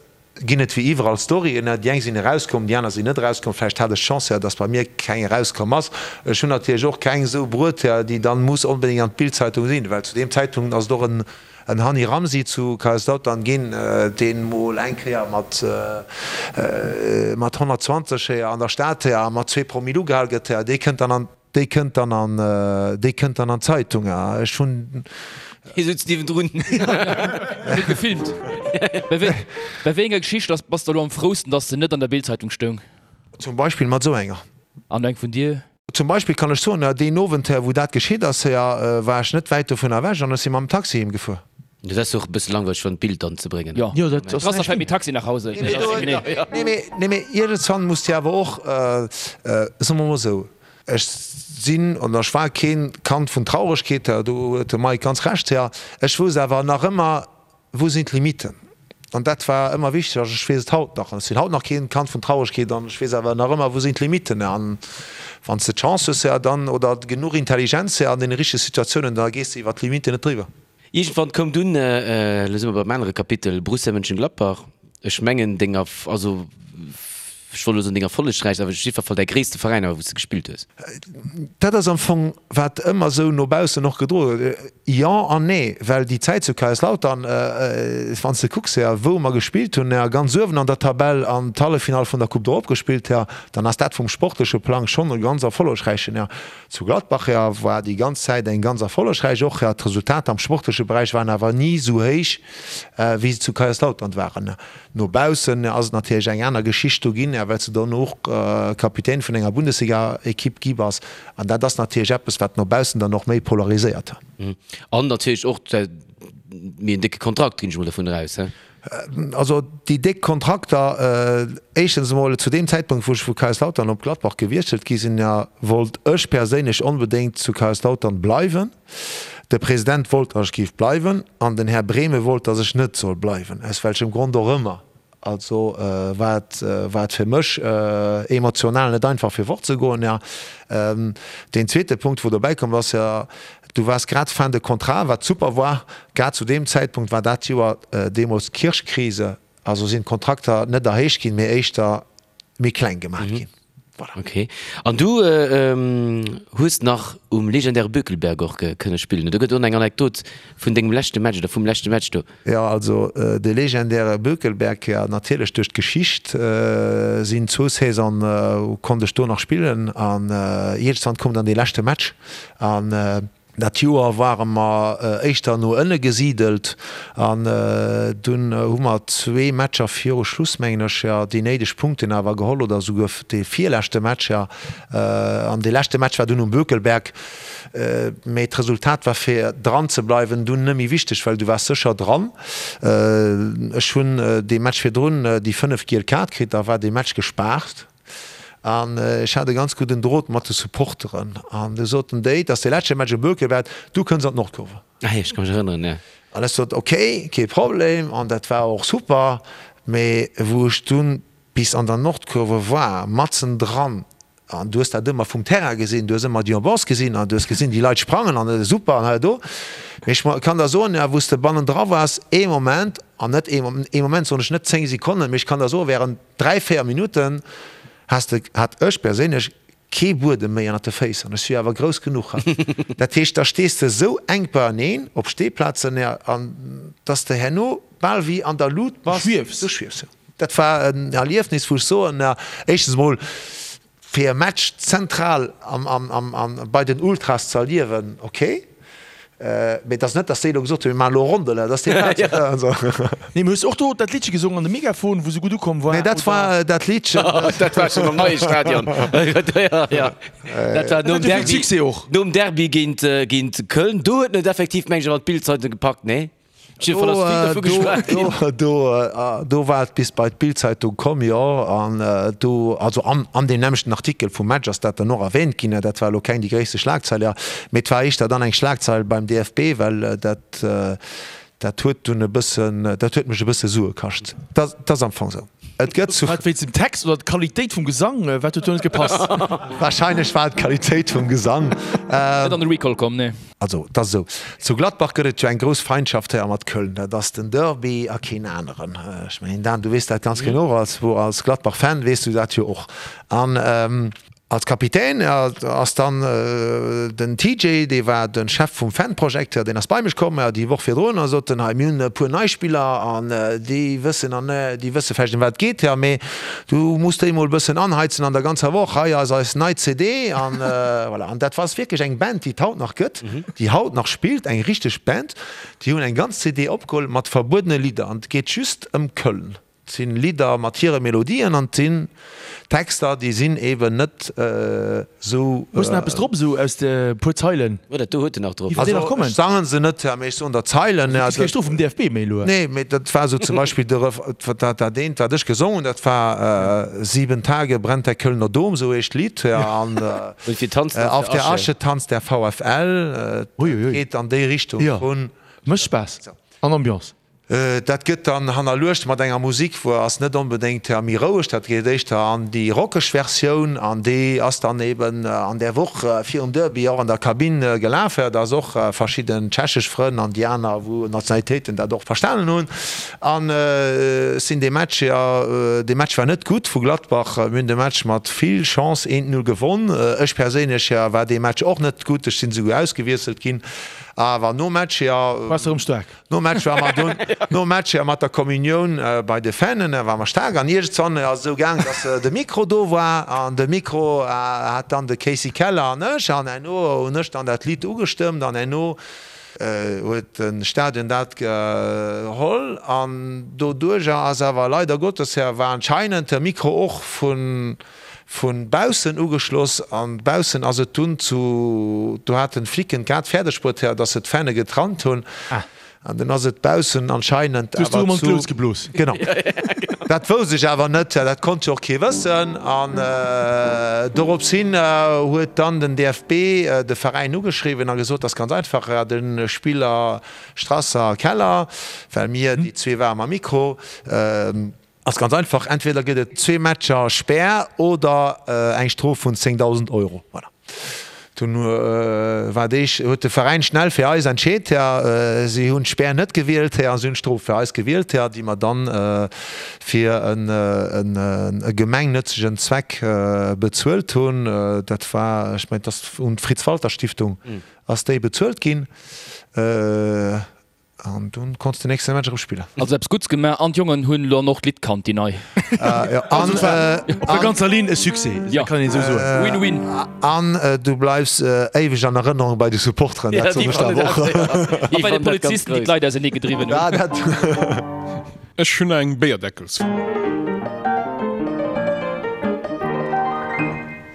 ginn et wéi iwwerall Storyen, déi eng sinn erauskomm, déi aner sinn net erauskomm. Vläicht hat ech d'Chance, jo, dass bei mir keng erauskomm ass. Ech hunn natierlech och keng esou bruet, jo, déi dann muss onbedéngt an d'Bild-Zeitung sinn, well zu deem Zäitpunkt ass et och en En Hani Ramzi zu Kaiserslautern ginn, deen mol eng Kéier mat mat 120 an der Stad a mat zwee Promille ugehal gëtt, dee kënnt dann an déi kënnt dann an déi kënnt dann an d'Zeitung. Ech hunn. Hie sutz niewendrun. Huet gefilmt. Bei wéi bei wéi enger Geschicht ass bass de elo am frousten, dass se net an der Bildzeitung stoung? Zum Beispill mat esou enger. An eng vun dir? Zum Beispill kann ech soen, deen Owend, wou dat geschitt ass, war ech net wäit dovun ewech an ech si mam Taxi heem gefuer. Dat ass och e bësse langweileg fir an d'Bild dann ze bréngen. Jo, dat ass näischt. Strasser fält mit Taxi nach Hause. Nee, mee, nee, iergendswann muss de awer och, soe mer mol esou, ech sinn oder ech war keen Kand vun Trauregkeet, do huet de Mike ganz Recht, ech wousst awer nach ëmmer, Wou sinn d'Limiten? An dat war ëmmer wichteg an ech weess et haut nach. An ech sinn haut nach keen Kand vun Trauregkeet an ech weess awer nach ëmmer, wou sinn d'Limiten. An wann s de d'Chance hues, ja, dann, oder genuch Intelligenz, ja, an deene richtege Situatiounen, da gees de iwwer d'Limiten net driwwer. Iergendwann koum dunn, elo si mer beim anere Kapitel, Borussia Mönchengladbach. Ech mengen, deng Erf-, also. Ech wollt elo soen deng erfollegräichst, awer op jiddwer Fall däi gréisste Veräin awer wou s de gespillt hues. Dat ass am Fong wat ëmmer esou no baussen och gedroe gëtt. Jo an nee, well déi Zäit zu Kaiserslautern, wann s de kucks, jo, wou mer gespillt hunn, jo, ganz uewen an der Tabell an d'Halleffinall vun der Coupe d'Europe gespillt, jo, dann ass dat vum sportleche Plang schonn e ganz erfollegräichen, jo. Zu Gladbach, jo, war déi ganz Zäit eng ganz erfollegräich och, jo. D'Resultater am sportleche Beräich waren awer ni esou héich, wéi se zu Kaiserslautern waren. No baussen ass et natierlech eng aner Geschicht do ginn, well s de dann och Kapitän vun enger Bundesliga-Ekipp gi bass. An dat ass natierlech eppes, wat no baussen dann och méi polariséiert. An natierlech och méi en décke Kontrakt, ginn ech mol dovun eraus, he? Also déi déck Kontrakter, éischtens emol zu deem Zäitpunkt, wou ech vu Kaiserslautern op Gladbach gewiesselt gi sinn, wollt ech perséinlech onbedéngt zu Kaiserslautern bleiwen. De President wollt, datt ech géif bleiwen, an den Här Brehme wollt, datt ech net soll bleiwen, aus welchem Grond och ëmmer. Also war et, war et fir mech emotional net einfach fir fortzegoen. Jo, deen zweete Punkt wou dobäi komm ass, jo, du waars grad fin de contrat, wat super war. Grad zu deem Zäitpunkt war dat Joer deemools d'Kirchkrise, also sinn d'Kontrakter net erhéicht ginn, mee éischter méi kleng gemaach ginn. Voilà. Ok. An du hues nach um legendäre Bökelberg och kënne spillen. Do gëtt och eng Anekdot vun dengem leschte Match oder vum leschte Match do. Jo, also de legendäre Bökelberg, jo natierlech duerch d'Geschicht sinn zwou Saisone konnt ech do nach spillen an iergendwann koum dann dee leschte Match an Dat Joer ware mer éischter no ënne gesidelt an dunn hu mer zwee Matcher viru Schluss, mengen ech, jo, déi néideg Punkten awer geholl oder esouguer dee virleschte Match, jo. An dee leschte Match war dunn um Bökelberg. Mee d'Resultat war fir dran ze bleiwen dunn net méi wichteg, well du waars sécher dran. Ech hunn dee Match virdrun déi 5 giel Kaart kritt, da war dee Match gespaart. An ech hat e ganz gudden Drot mat de Supporteren. An du soten déi, et ass dee leschte Match um Bökelberg, du kënns an d'Nordkurve. Ah jo, ech ka mech erënneren, jo. An ech sot, ok, kee Problem. An dat war och super. Mee wou ech dunn bis an der Nordkurve war, matzen dran, an du hues dat ëmmer vum Terrain gesinn, du hues ëmmer déi Ambiance gesinn an du hues gesinn, déi Leit sprangen an super an hei a do. Mee ech kann der soen, wou s de bannendra waars, ee Moment, an net ee Moment soen ech net 10 Sekonnen, mee ech kann der soen, während 3, 4 Minutten has de, hat ech perséinlech kee Buedem méi ënnert de Féiss an ech si jo awer grouss genuch. Dat heescht, da stees de esou enk beieneen op Steeplazen, an dass de herno bal wéi an der Lut bass. Du schwiefs. Du schwiefs, jo. Dat war en Erliefnis, wou ech soen, éischtens emol, Fir e Match zentral bei den Ultras ze erliewen, ok, mee et ass net, datt déi elo gesot hunn, mir maachen elo Rondele, dat ass déi Plaz. Nee, mee hues och do dat Liddche gesongen an de Megafon, wou se gutt ukomm war? Nee, dat war dat Liddchen. Dat war schonn am neie Stadion. Dat war nom Derby, nom Derby géint Köln. Do huet en et effektiv, meng ech, awer an d'Bild-Zeitung gepackt, nee? Do war et bis bei d'Bild-Zeitung komm, jo. An do, also an deem nämmlechten Artikel vum Match ass dat dann och erwähnt ginn. Dat war elo keng déi gréisste Schlagzeil, jo. Mee et war éischter dann eng Schlagzeil beim DFB, well dat, dat huet dunn e bëssen, dat huet mech e bësse Sue kascht. Dat ass am Fong esou. Et gëtt zu. War et wéinst dem Text oder d'Qualitéit vum Gesang? Wat huet do net gepasst? Warscheinlech war et d'Qualitéit vum Gesang. Net an de Recall komm, nee. Also, et ass esou, zu Gladbach gëtt et jo eng grouss Feindschaft hei a mat Köln. Dat ass den Derby a keen aneren. Ech mengen, Dan, du weess dat ganz genau, als, als Gladbach-Fan weess du dat jo och. An als Kapitän ass dann den TJ, dee war de Chef vum Fanprojekt, deen ass bei mech komm déi Woch virdrun a sot en, hei, mir hunn e puer nei Spiller an déi wëssen an déi wësse vläicht ëm wat et geet, mee Du muss déi mol bëssen anheizen an der ganzer Woch. Hei ass eis nei CD an voilà. An dat ass wierklech eng Band, déi et haut nach gëtt, déi haut nach spillt, eng richteg Band. Déi hunn eng ganz CD opgeholl mat verbuedene Lidder an et geet just ëm Köln. Et sinn Lidder mat hire Melodien an et sinn Texter, déi sinn eben net esou. Hues de nach eppes drop esou aus de puer Zeilen? Jo, dat do huet en nach drop. Also ech sangen se net, mee ech soen der Zeilen. Du kriss keng Strof vum DFB méi elo. Nee, mee dat war esou zum Beispill de Ref, dat dat eent wat ech gesongen hunn, dat war Sieben Tage brennt der Kölner Dom, esou heescht d'Lidd, an Auf der Asche tanzt der VfL. Dat geet an déi Richtung vun. Mécht Spaass an Ambiance. Dat gëtt dann hannerluecht mat enger Musik, wou ass net onbedéngt méi roueg, dat geet éischter an déi rockeg Versioun an déi ass dann eben an där Woch virum Derby och an der Kabinn gelaf, dass och verschidden tschechesch Frënn an déi aner wou Nationalitéiten dat och verstanen hunn. An ech sinn dee Match, jo dee Match war net gutt vu Gladbach, mir hunn de Match mat vill Chance 1, 0 gewonn. Ech perséinlech war dee Match och net gutt, ech sinn esouguer ausgewiesselt ginn, awer nom Match, jo. Waars de erëm staark? Nom Match war mer dunn, nom Match jo mat der Kommunioun bei de Fanen, war mer staark. An iergendzwann ass et esou gaang, dass de Mikro do war an de Mikro hat dann de Casey Keller an ech an herno hunn ech dann dat Lidd ugestëmmt an herno huet de Stadion dat geholl an doduerjer ass awer leider Gottes war anscheinend de Mikro och vun Vun baussen ugeschloss an baussen ass et dunn zu, do haten d'Flicken grad fäerdeg bruet, dass se d'Fäne getrannt hunn an dunn ass et baussen anscheinend awer zu, genau, dat wousst ech awer net, dat konnt jo och kee wëssen an dorops hin huet dann den DFB de Veräin ugeschriwwen a gesot, dass ganz einfach de Spiller Strasser a Keller, well mir déi zwee ware mam Mikro, Ass ganz einfach, entweder gëtt et zwee Matcher Spär oder eng Strof vun 10.000 Euro. Voilà. Dunn war déi, huet de Veräin schnell fir eis entscheet. Si hunn d'Spär net gewielt a si hunn d'Strof fir eis gewielt, déi mer dann fir e gemengnëtzegen Zweck bezuelt hunn. Dat war, ech mengen, et ass un d'Fritz-Walter-Stiftung ass déi bezuelt ginn. An dunn konns de nächste Match erëm spillen. Also eppes Gutts gemaach an d'Jongen hunn lo an och d'Lidd kannt, déi nei. Also et war op der ganzer Linn e Succès, dat kann een esou soen. Win-win. An du bleifs éiweg an Erënnerung bei de Supporteren, dat soen ech der awer och. A bei de Polizisten, déi d'Leit ausernee gedriwwen hunn. Ech hunn eng Béierdeckelsfro.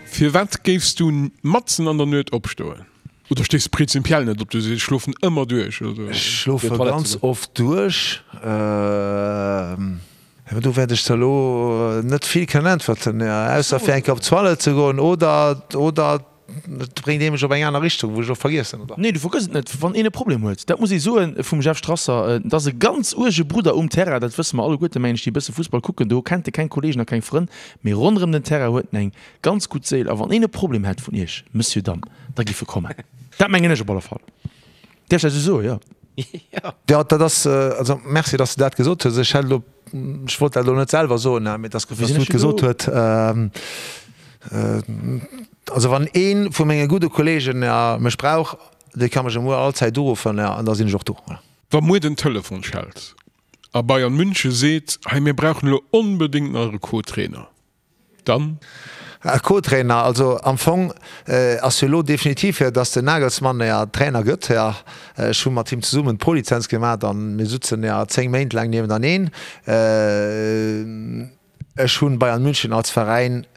Firwat géifs du matzen an der Nuet opstoen? Oder stees de prinzipiell net op, du sees ech schlofen ëmmer duerch? Oder? Ech schlofe ganz oft duerch. Do wäert ech der elo net vill kënnen äntwerten, ausser fir eng Kéier op d'Toilette ze goen oder oder et bréngt ee mech op eng aner Richtung, wou ech och vergiessen, oder? Nee, du vergëss et net, wann een e Problem huet. Dat muss ee soen vum Jeff Strasser, et ass e ganz uerge Brudder um Terrain, dat wësse mer alleguerte mengen ech, déi e bësse Fussball kucken. Do kennt e keng Kollegen a keng Frënn, mee ronderëm den Terrain huet en eng ganz gutt Séil. A wann een e Problem hätt vun iech, Monsieur, Dame, Da giff e kommen. Dat mengen ech op alle Fall. Däerf ech dat esou soen? Jo. Jo, dat ass, also merci, dass de dat gesot hues. Ech hätt elo, ech wollt dat elo net selwer soen, mee et ass gutt, dass du et gesot huet. Also wann ee vu menge gudde Kollegen mech brauch, dee ka mech emuer allzäit uruffen an da sinn ech och do. Voilà. Wa muer den Telefon schellt a Bayern München seet, hei mir brauchen elo onbedéngt nach e Co-Trainer, Dann? Co-Trainer, also am Fong ass jo elo definitiv, dass den Nagelsmann ja Trainer gëtt. Ech hu mat him zesummen d'Prolizenz gemaat an mir sutzen ja 10 Méint laang niewentaneen. Ech hunn Bayern München als Veräin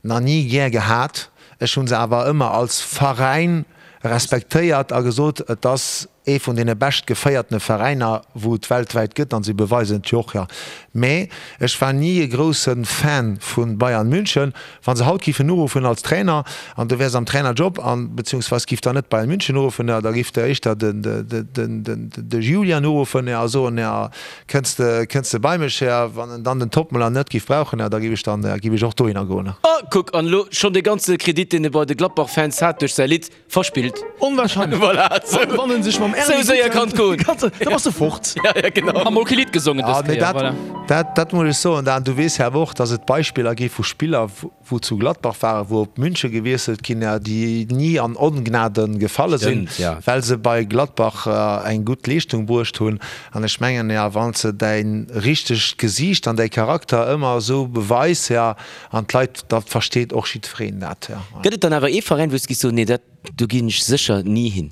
na ni gär gehat, ech hunn se awer ëmmer als Veräin respektéiert a gesot, et ass ee vun deene bescht geféiertene Veräiner wou et weltwäit gëtt, an si beweisen et jo och, jo. Mä ech war ni e grousse Fan vu Bayern München. Wa se haut giffen uruffen als Trainer an du wäers am Trainerjob an beziehungsweis giff der net Bayern München uruffen, jo, da giff der éischter de Julian uruffen, jo, a soen, jo, kënns de, kënns de bei mech, jo. Wann en dann den Toppmüller net giff brauchen, jo, da giff ech dann, giff ech och dohinner goen. Oh, kuck, an elo schonn dee ganze Kredit, deen e bei de Gladbach-Fans hat duerch säi Lidd, Verspillt. Onwahrscheinlech. Voilà, sou, Wann en sech mam Erny sou séier kann et goen. Da bass de fort. Ja, ja, genau. Ham mol kee Lidd gesongen dës Ah, mee Kéier, dat, voilà. dat, dat muss ech soen, Dan, du weess jo awer och, datt et Beispiller gi vu Spiller, wou zu Gladbach waren, wou op München gewiesselt ginn, déi ni an Ongnade gefalle sinn, Stimmt, ja. well se bei Gladbach eng gutt Leeschtung bruecht hunn. An ech mengen, jo, wann s de däi richtegt Gesiicht an däi Charakter ëmmer esou beweis, jo, An d'Leit, dat versteet och jiddwereen dat. Gëtt et dann awer ee Veräin, wou s de giss soen, nee dat, do ginn ech sécher ni hin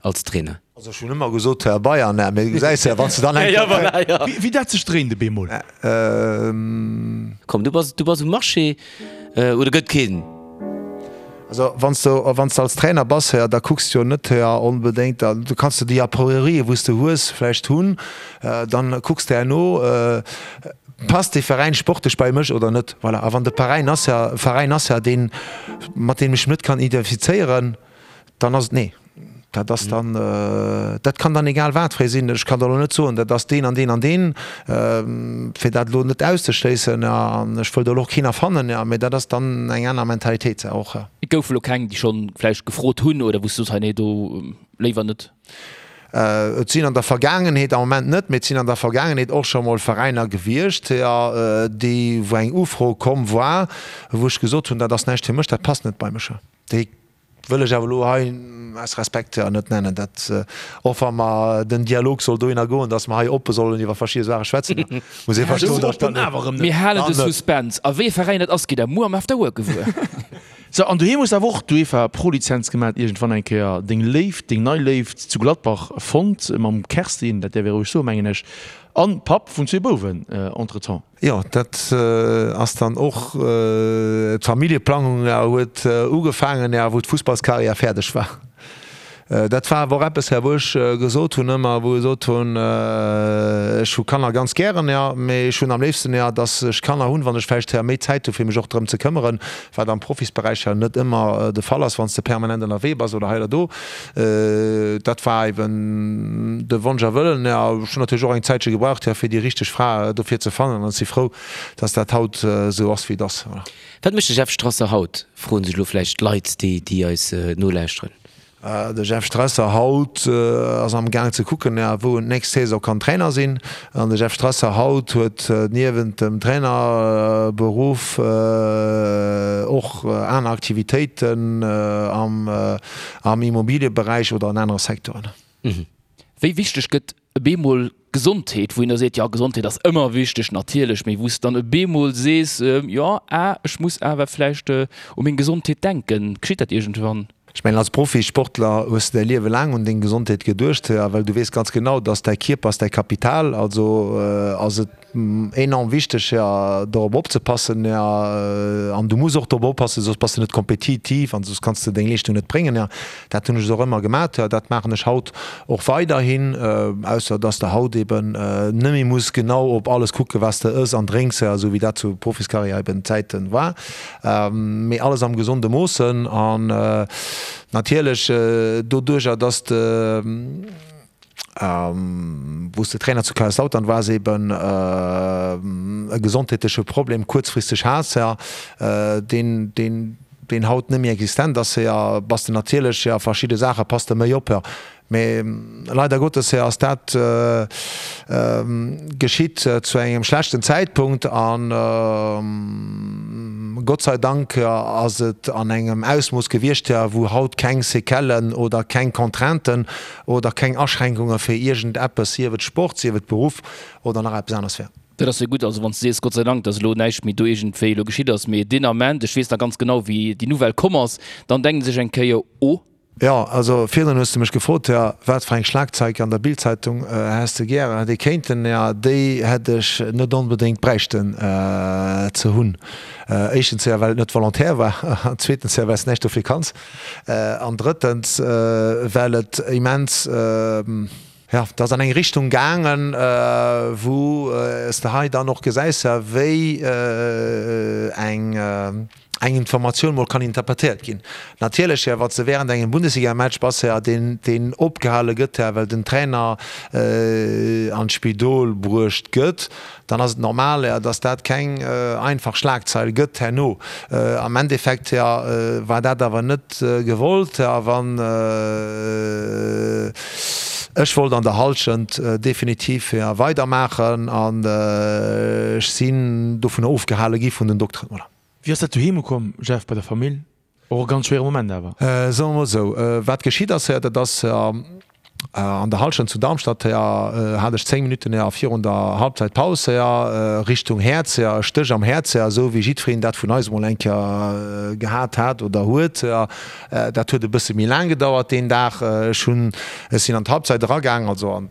als Trainer? Also ech hunn ëmmer gesot Bayern, mee du gesäis jo, wann s de dann eng Kéier. Wéi dat sech dréint op eemol. Komm, du bass, du bass um Marché, oder gëtt keen? Also wann s de, wann s de als Trainer bass, da kucks de jo net onbedéngt, du kanns de déi Apriorien, wou s de hues, vläicht hunn, dann kucks de herno, Passt dee Veräin sportlech bei mech oder net? Voilà. A wann de Veräin ass ja, Veräin ass ja deen, mat deem ech mech net kann identifizéieren, dann ass et nee. Dat ass dann, dat kann dann egal wat fir ee sinn. Ech kann der elo net soen, dat ass deen an deen an deen, fir dat elo net auszeschléissen. An ech wëll do elo och keen erfannen, jo, mee dat ass dann eng aner Mentalitéit och. Et goufe elo keng, déi schonn vläicht gefrot hunn oder wou s du soos, hei nee, do léiwer net? Et sinn an der Vergaangenheet, am Moment net, mee et sinn an der Vergaangenheet och scho mol Veräiner gewiescht, jo, déi, wou eng Ufro komm war, wou ech gesot hunn, dat ass näischt fir mech, dat passt net bei mech. Déi wëll ech awer elo hei aus Respekt net nennen. Dat, och wa mer, den Dialog soll dohinner goen, datt mer hei oppe sollen iwwer verschidde Saache schwätzen, muss ee verstoen, datt ech dat net. Mir halen de Suspense. A wéi e Veräin dat ass, gitt der muer am After Work gewuer. Sou, an doheem hues de awer och d'UEFA Pro-Lizenz gemat, iergendwann eng Kéier deng Léift, deng nei Léift zu Gladbach fonnt, mam Kerstin, dat däerf ee roueg soen, mengen ech, an Papp vun zwee Bouwen entretemps. Jo, dat ass dann och, d'Familljeplangung huet ugefaangen, wou d'Fussballskarriär fäerdeg war. Dat war awer och eppes, wou ech gesot hunn ëmmer, wou ech gesot hunn, ech hu Kanner ganz gären, jo, mee ech hunn am léifsten, jo, datt ech Kanner hunn, wann ech vläicht méi Zäit hu fir mech och drëm ze këmmeren, wat am Profisberäich jo net ëmmer de Fall ass, wann s de permanent ënnerwee bass oder hei oder do. Dat war eben de Wonsch a Wëllen. Jo, ech hunn natierlech och eng Zäitche gebraucht, jo, fir déi richteg Fra dofir ze fannen an ech si frou, datt dat haut esou ass, wéi et ass. Voilà. Wat mécht de Jeff Strasser haut, froen sech elo vläicht d'Leit, déi eis nolauschteren. De Jeff Strasser haut ass am Gaang ze kucken, wou en d'nächst Saison kann Trainer sinn. An de Jeff Strasser haut huet niewent dem Trainerberuff och aner Aktivitéiten am Immobilieberäich oder an anere Secteuren. Wéi wichteg gëtt e bemol Gesondheet, wou een da seet, jo Gesondheet ass ëmmer wichteg natierlech, mee wou s de dann e bemol sees, jo ah ech muss awer vläicht u meng Gesondheet denken, geschitt dat iergendwann? Ech mengen als Profisportler hues de däi Liewe laang un deng Gesondheet geduecht, well du weess ganz genau, dass däi Kierper ass däi Kapital, also ass et enorm wichteg dorop opzepassen an du muss och dorop oppassen, soss bass de net kompetitiv an soss kanns de deng Leeschtung net bréngen. Dat hunn ech och ëmmer gemat, dat maachen ech haut och weiderhin, ausser dass de haut eben net méi muss genau op alles kucken, wat s de ëss an drénks, esou wéi dat zu Profiskarriär eben Zäite war, mee alles am gesonde Moossen an natierlech doduercher, dass de. Wou s de Trainer zu Kaiserslautern waars, eben e gesondheetleche Problem kuerzfristeg has, deen, deen, deen haut net méi existent ass, bass de natierlech, jo, verschidde Saache pass de méi op. Mee leider Gottes ass dat geschitt zu engem schlechten Zäitpunkt an Gott sei Dank ass et an engem Ausmooss gewiescht, wou haut keng Séquellen oder keng Contrainten oder keng Aschränkunge fir iergend eppes, sief et Sport, sief et Beruff oder nach eppes aneres wär. Dat ass jo gutt, also wann s de sees, Gott sei Dank, datt elo näischt méi do iergendwéi elo geschitt ass, mee deen Ament, ech weess nach ganz genau, wéi déi Nouvelle komm ass, dann denkt ee sech eng Kéier, Oh. Jo, also virdrun hues de mech gefrot, jo, wat fir eng Schlagzeig an der Bildzeitung häss de gären, hätt ee kéinten, jo, déi hätt ech net onbedéngt bräichten ze hunn. Éischtens, jo, well et net volontaire war, an zweetens, jo, well s de näischt dofir kanns. An drëttens, well et immens, jo, et ass an eng Richtung gaangen, wou s de hei dann och gesäis, wéi eng eng Informatioun mol kann interpretéiert ginn. Natierlech, wann s de während engem Bundesligamatch bass, deen deen opgehale gëtt, well den Trainer an d'Spidol bruecht gëtt, dann ass et normal, dass dat keng einfach Schlagzeil gëtt herno. Am Endeffekt war dat awer net gewollt. A wann ech wollt an der Hallschent definitiv weidermaachen an ech sinn dovunner ofgehale gi vun den Dokteren. Voilà. Wéi ass dat doheem ukomm, Jeff, bei der Famill? Och e ganz schwéiere Moment awer. Soe mer mol esou, wat geschitt ass, dat ass an der Hallschent zu Darmstadt, hat ech 10 Minutten virun der Halbzeitpaus Richtung Häerz, e Stéch am Häerz, esou wéi jiddwereen dat vun eis emol eng Kéier gehat hat oder huet. Dat huet e bësse méi laang gedauert deen Dag. Ech hunn, ech sinn an d'Halbzeit eragaang, also an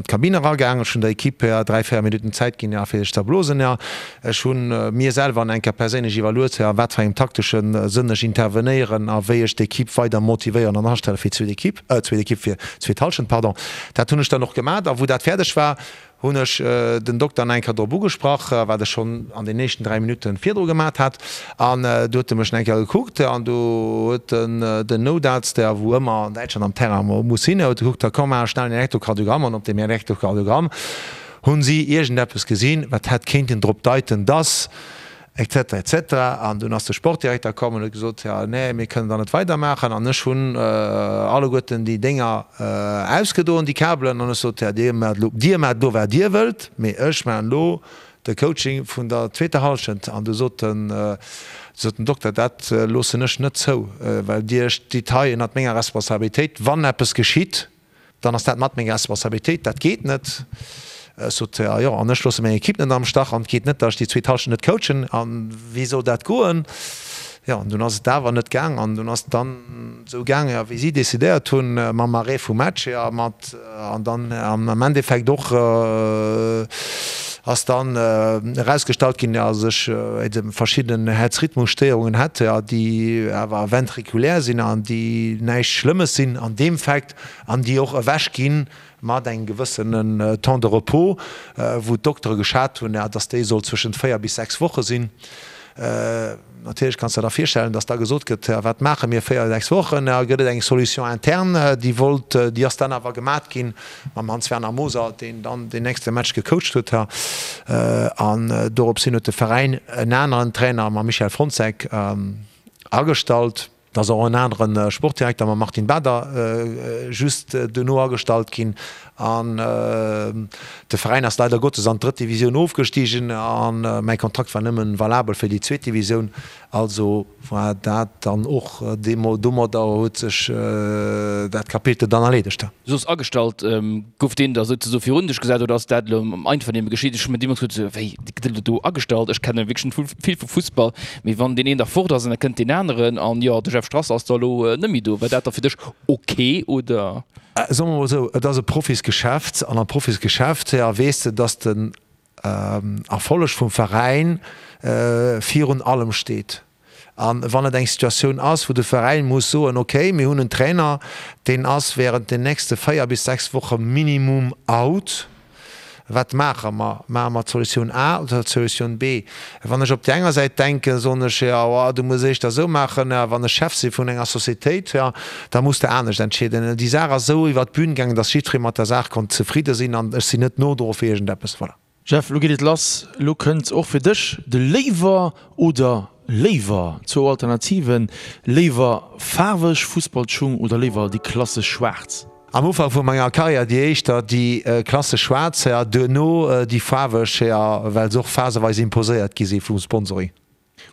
d'Kabinn eragaang. Ech hunn der Equipe 3, 4 Minutten Zäit ginn, fir sech ze erblosen. Ech hu mir selwer an enker perséinlech iwwerluet, a wat fir engem taktesche Sënn ech intervenéieren a wéi ech d'Equipe weider motivéieren an astelle fir d'zweet Equipe, zweet Equipe fir d'zweet Hallschent, pardon. Dat hunn ech dann och gemat a wou dat fäerdeg war, Hunn ech den Dokter nach eng Kéier drop ugesprach, wat ech schonn an den éischten 3 Minutte virdru gemat hat. An du huet e mech nach eng Kéier gekuckt an du huet en den Noutarzt, der wou ëmmer an Däitschland am Terrain muss sinn, huet gekuckt, da komm maache schnell en Elektrokardiogramm. An op deem Elektrokardiogramm hunn si iergendeppes gesinn, wat hätt kéinten drop deiten, dass Etc. Etc. An dunn ass de Sportdirekter komm an huet gesot, Jo, nee, mir kënnen da net weidermaachen. An ech hunn alleguerten déi Dénger ausgedoen, déi Kabelen, an ech sot, Jo, dir maacht elo, dir maacht elo, wat dir wëllt, mee ech maachen elo de Coaching vun der zweeter Hallschent. An du sot den, sot den Dokter, Dat loossen ech net zou, well dir stitt hei ënnert menger Responsabilitéit. Wann eppes geschitt, Dann ass dat mat meng Responsabilitéit, dat geet net. Ech sot, jo, jo, an ech loosse meng Ekipp net am Stach an et geet net, datt ech déi zweet Hallschent net coachen. A wéi soll dat goen? Jo, an dunn ass et awer net gaang an dunn ass et dann esou gaang, jo, wéi si decidéiert hunn, mam Arrêt vum Match, jo, mat an dann am Endeffekt och ass dann erausgestallt ginn, datt ech verschidden Häerzrhythmusstéierungen hätt, jo, déi awer ventrikulär sinn an déi näischt Schlëmmes sinn an deem Fait. an déi och ewech gi mat engem gewëssenen Temps de repos, wou d'Doktere geschat hunn, dass déi soll zwëschent 4 bis 6 Woche sinn. Natierlech kanns de der da virstellen, dass da gesot gëtt, wat maache mir 4, 6 Wochen? Gëtt et eng Solution interne, déi wollt, déi ass dann awer gemat ginn mam Hans-Werner Moser, deen dann deen nächste Match gecoacht huet. An dorops hin huet de Veräin en aneren Trainer mam Michel Frontzek agestallt. Et ass och en anere Sportdirekter mam Martin Bader just duerno agestallt ginn an de Veräin ass leider Gottes an d'drëtt Divisioun ofgestigen a mäi Kontrakt war nëmmen valabel fir déi zweet Divisioun. Also war dat dann och domadder huet sech dat Kapitel dann erleedegt. Du soos agestallt, gouf deen da souzesoe virun dech gesat oder ass dat elo am Einvernehmen geschitt? Ech hu mir deemools gesot, wéi gëtt elo do agestallt? Ech kenne wierklech net vill vu Fussball, mee wann deen een da fort ass an da kënnt deen aneren an jo, de Jeff Strasser ass da elo net méi do, war dat da fir dech ok oder? Soe mer mol esou, et ass e Profisgeschäft an am Profisgeschäft, jo, weess de, dass den Erfolleg vum Veräin virun allem steet. A wann et eng Situatioun ass, wou de Veräin muss soen, okay, mir hunn en Trainer, deen ass während den nächste 4 bis 6 Woche minimum out, wat maache mer? Maache mer d'Solutioun A oder d'Solutioun B? Wann ech op déi enger Säit denken, soen ech, jo, du muss éischter esou maachen. Wann ech Chef si vun enger Societéit, jo, da muss de anescht entscheeden. Déi Saach ass esou iwwert d'Bün gaangen, datt jiddweree mat der Saach konnt zefridde sinn an ech sinn net nodro fir iergendeppes. Voilà. Jeff, lo geet et lass. Lo kënnt och fir dech de Léiwer oder Léiwer. Zwou Alternativen, Léiwer faarweg Fussballschung oder léiwer déi klassesch schwaarz? Am Ufank vu menger Karriär déi éischter déi klassesch schwaarz, duerno déi faarweg, well se och phaseweis imposéiert gi si vum Sponsoring.